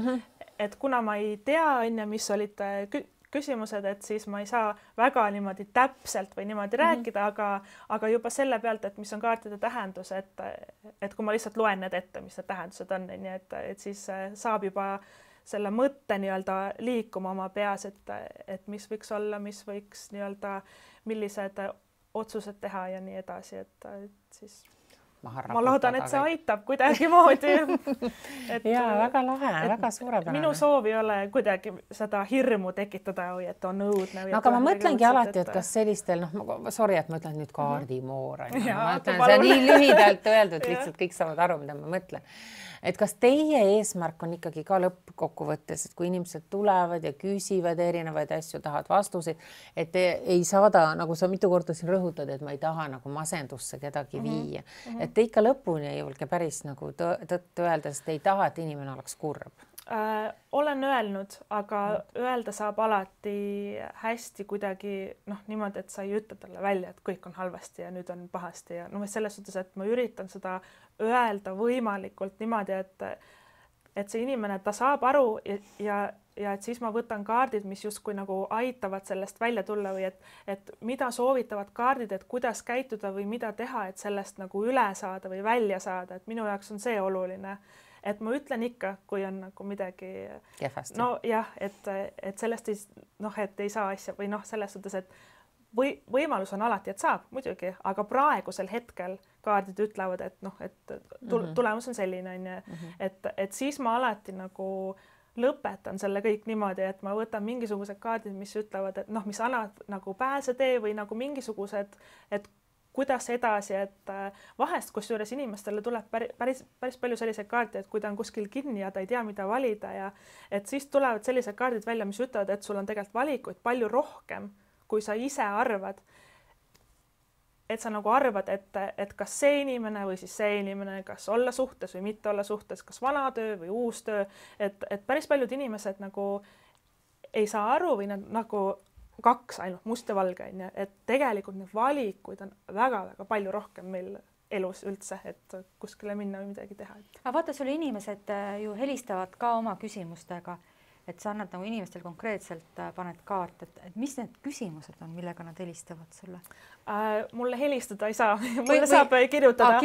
Et kuna ma ei tea, mis olid küsimused, et siis ma ei saa väga niimoodi täpselt või niimoodi rääkida, aga juba selle pealt, et mis on kaartide tähendus, et kui ma lihtsalt loen need ette, mis need tähendused on, nii et siis saab juba selle mõtte nii-öelda liikuma oma peas, et mis võiks olla, mis võiks nii-öelda, millised otsused teha ja nii edasi, et siis ma loodan, et see aitab kuidagimoodi. Jaa, väga lahe, väga suurepärane. Minu soov ei ole kuidagi seda hirmu tekitada või et on õudne. No, aga ma mõtlengi alati, et kas sellistel, sorry, et ma ütlen nüüd kaardimoor. Ma ütlen, see on nii lühidalt öeldud, lihtsalt kõik saavad aru, mida ma mõtlen. Et kas teie eesmärk on ikkagi ka lõppkokkuvõttes, et kui inimesed tulevad ja küsivad erinevaid asju, tahavad vastuseid, et ei saada, nagu sa mitu korda siin rõhutad, et ma ei taha nagu masendusse kedagi viia. Et te ikka lõpuni ei julge päris nagu tõtt öelda, sest ei taha, et inimene oleks kurb. Olen öelnud, aga öelda saab alati hästi kuidagi niimoodi, et sa ei ütle talle välja, et kõik on halvasti ja nüüd on pahasti ja selles suhtes, et ma üritan seda öelda võimalikult niimoodi, et see inimene, ta saab aru ja et siis ma võtan kaardid, mis justkui nagu aitavad sellest välja tulla või et mida soovitavad kaardid, et kuidas käituda või mida teha, et sellest nagu üle saada või välja saada, et minu jaoks on see oluline. Et ma ütlen ikka, kui on nagu midagi kehvasti. No jah, et sellest et ei saa asja või selles suhtes, et võimalus on alati, et saab muidugi, aga praegusel hetkel kaardid ütlevad, et tulemus on selline, et siis ma alati nagu lõpetan selle kõik niimoodi, et ma võtan mingisugused kaardid, mis ütlevad, et mis annavad nagu pääsetee või nagu mingisugused, et kuidas edasi, et vahest kusjuures inimestele tuleb päris palju selliseid kaarte, et kui ta on kuskil kinni ja ta ei tea, mida valida ja et siis tulevad sellised kaardid välja, mis ütlevad, et sul on tegelikult valikuid palju rohkem, kui sa ise arvad. Et sa nagu arvad, et kas see inimene või siis see inimene, kas olla suhtes või mitte olla suhtes, kas vana töö või uus töö, et päris paljud inimesed nagu ei saa aru või nad nagu kaks ainult must ja valge, et tegelikult need valikuid on väga-väga palju rohkem meil elus üldse, et kuskile minna või midagi teha. Aga vaata, sulle inimesed ju helistavad ka oma küsimustega, et sa annad nagu inimestel konkreetselt paned kaart, et mis need küsimused on, millega nad helistavad sulle? Mulle helistada ei saa, mulle saab kirjutada.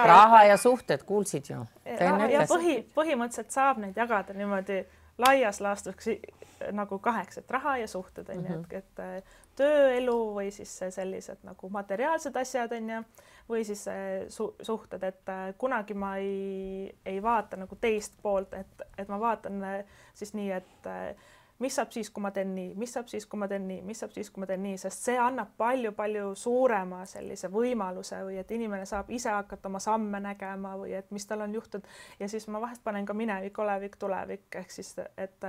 Raha ja suhted, kuulsid ju? Ja põhimõtteliselt saab neid jagada niimoodi laias laastus nagu 8, et raha ja suhted, et tööelu või siis sellised nagu materiaalsed asjad, või siis suhted, et kunagi ma ei vaata nagu teist poolt, et ma vaatan siis nii, et mis saab siis, kui ma teen nii, mis saab siis, kui ma teen nii, mis saab siis, kui ma teen nii, sest see annab palju-palju suurema sellise võimaluse või et inimene saab ise hakata oma samme nägema või et mis tal on juhtunud ja siis ma vahest panen ka minevik, olevik, tulevik, ehk siis, et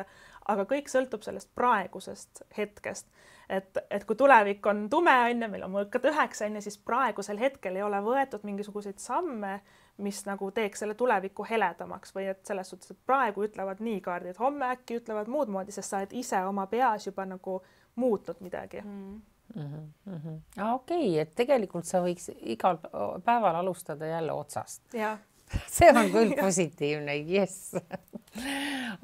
aga kõik sõltub sellest praegusest hetkest, et kui tulevik on tume, meil on mõõkad 9, siis praegusel hetkel ei ole võetud mingisuguseid samme, mis nagu teeks selle tuleviku heledamaks või et selles suhtes, et praegu ütlevad nii kaardid, homme äkki ütlevad muud moodi, sest sa oled ise oma peas juba nagu muutnud midagi. Okei, et tegelikult sa võiks igal päeval alustada jälle otsast. Ja. See on küll positiivne, yes.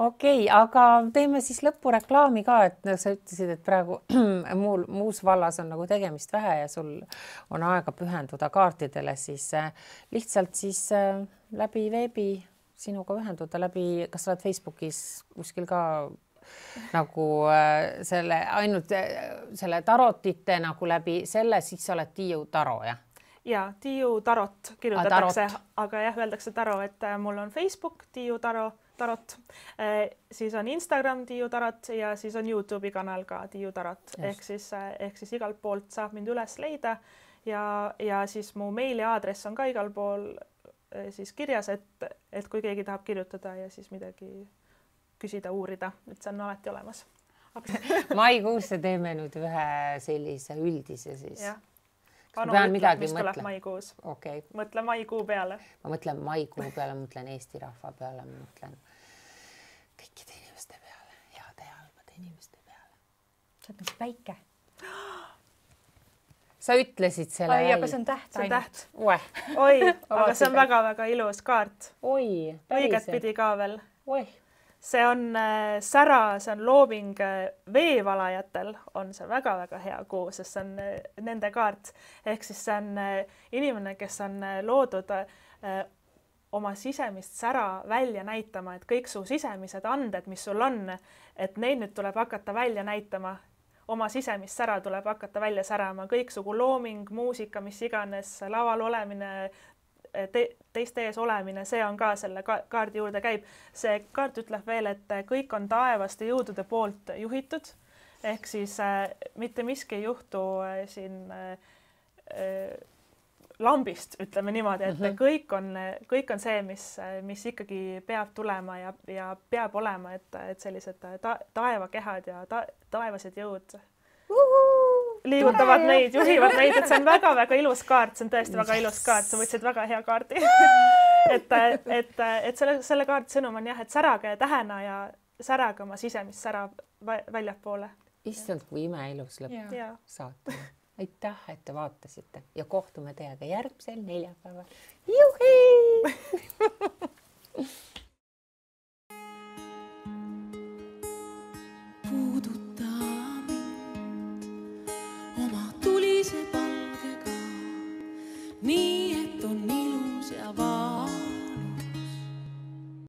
Okei, aga teeme siis lõpureklaami ka, et sa ütlesid, et praegu muus vallas on nagu tegemist vähe ja sul on aega pühenduda kaartidele, siis lihtsalt siis läbi veebi sinuga ühenduda läbi, kas sa oled Facebookis kuskil ka nagu selle ainult selle tarotite nagu läbi selle, siis sa oled Tiiu Taro, jah? Ja Tiiu Tarot kirjutatakse, aga jah, öeldakse Taro, et mul on Facebook Tiiu Tarot, siis on Instagram Tiiu Tarot ja siis on YouTube'i kanal ka Tiiu Tarot, ehk siis igalt poolt saab mind üles leida ja siis mu meiliaadress on ka igal pool siis kirjas, et kui keegi tahab kirjutada ja siis midagi küsida, uurida, et see on alati olemas. Maikuusse teeme nüüd ühe sellise üldise siis. Jah. Anu ütleb, mis tuleb maikuus. Okay. Mõtle maikuu peale. Ma mõtlen maikuu peale, mõtlen Eesti rahva peale, mõtlen kõikide inimeste peale, heade ja halbade inimeste peale. Sa oled nagu päike. Sa ütlesid selle välja. Aga see on täht. See on täht. Oi, aga see on väga-väga ilus kaart. Oi, õiget pidi ka veel. Oi. See on sära, see on looming veevalajatel, on see väga-väga hea kuu, sest see on nende kaart. Ehk siis see on inimene, kes on loodud oma sisemist sära välja näitama, et kõik su sisemised anded, mis sul on, et neid nüüd tuleb hakata välja näitama. Oma sisemist sära tuleb hakata välja särama. Kõiksugu looming, muusika, mis iganes, laval olemine, teiste ees olemine, see on ka selle kaardi juurde käib. See kaart ütleb veel, et kõik on taevaste jõudude poolt juhitud, ehk siis mitte miski ei juhtu siin lambist, ütleme niimoodi, et kõik on see, mis ikkagi peab tulema ja peab olema, et sellised taevakehad ja taevased jõud liigutavad neid, juhivad neid, et see on väga-väga ilus kaart, see on tõesti väga ilus kaart, sa võtsid väga hea kaardi. et selle kaardi sõnum on jah, et särage tähena ja särage oma sisemist sära väljapoole. Issand, kui imeilus lõpp saate. Aitäh, et te vaatasite ja kohtume teiega järgmisel neljapäeval. Juhi!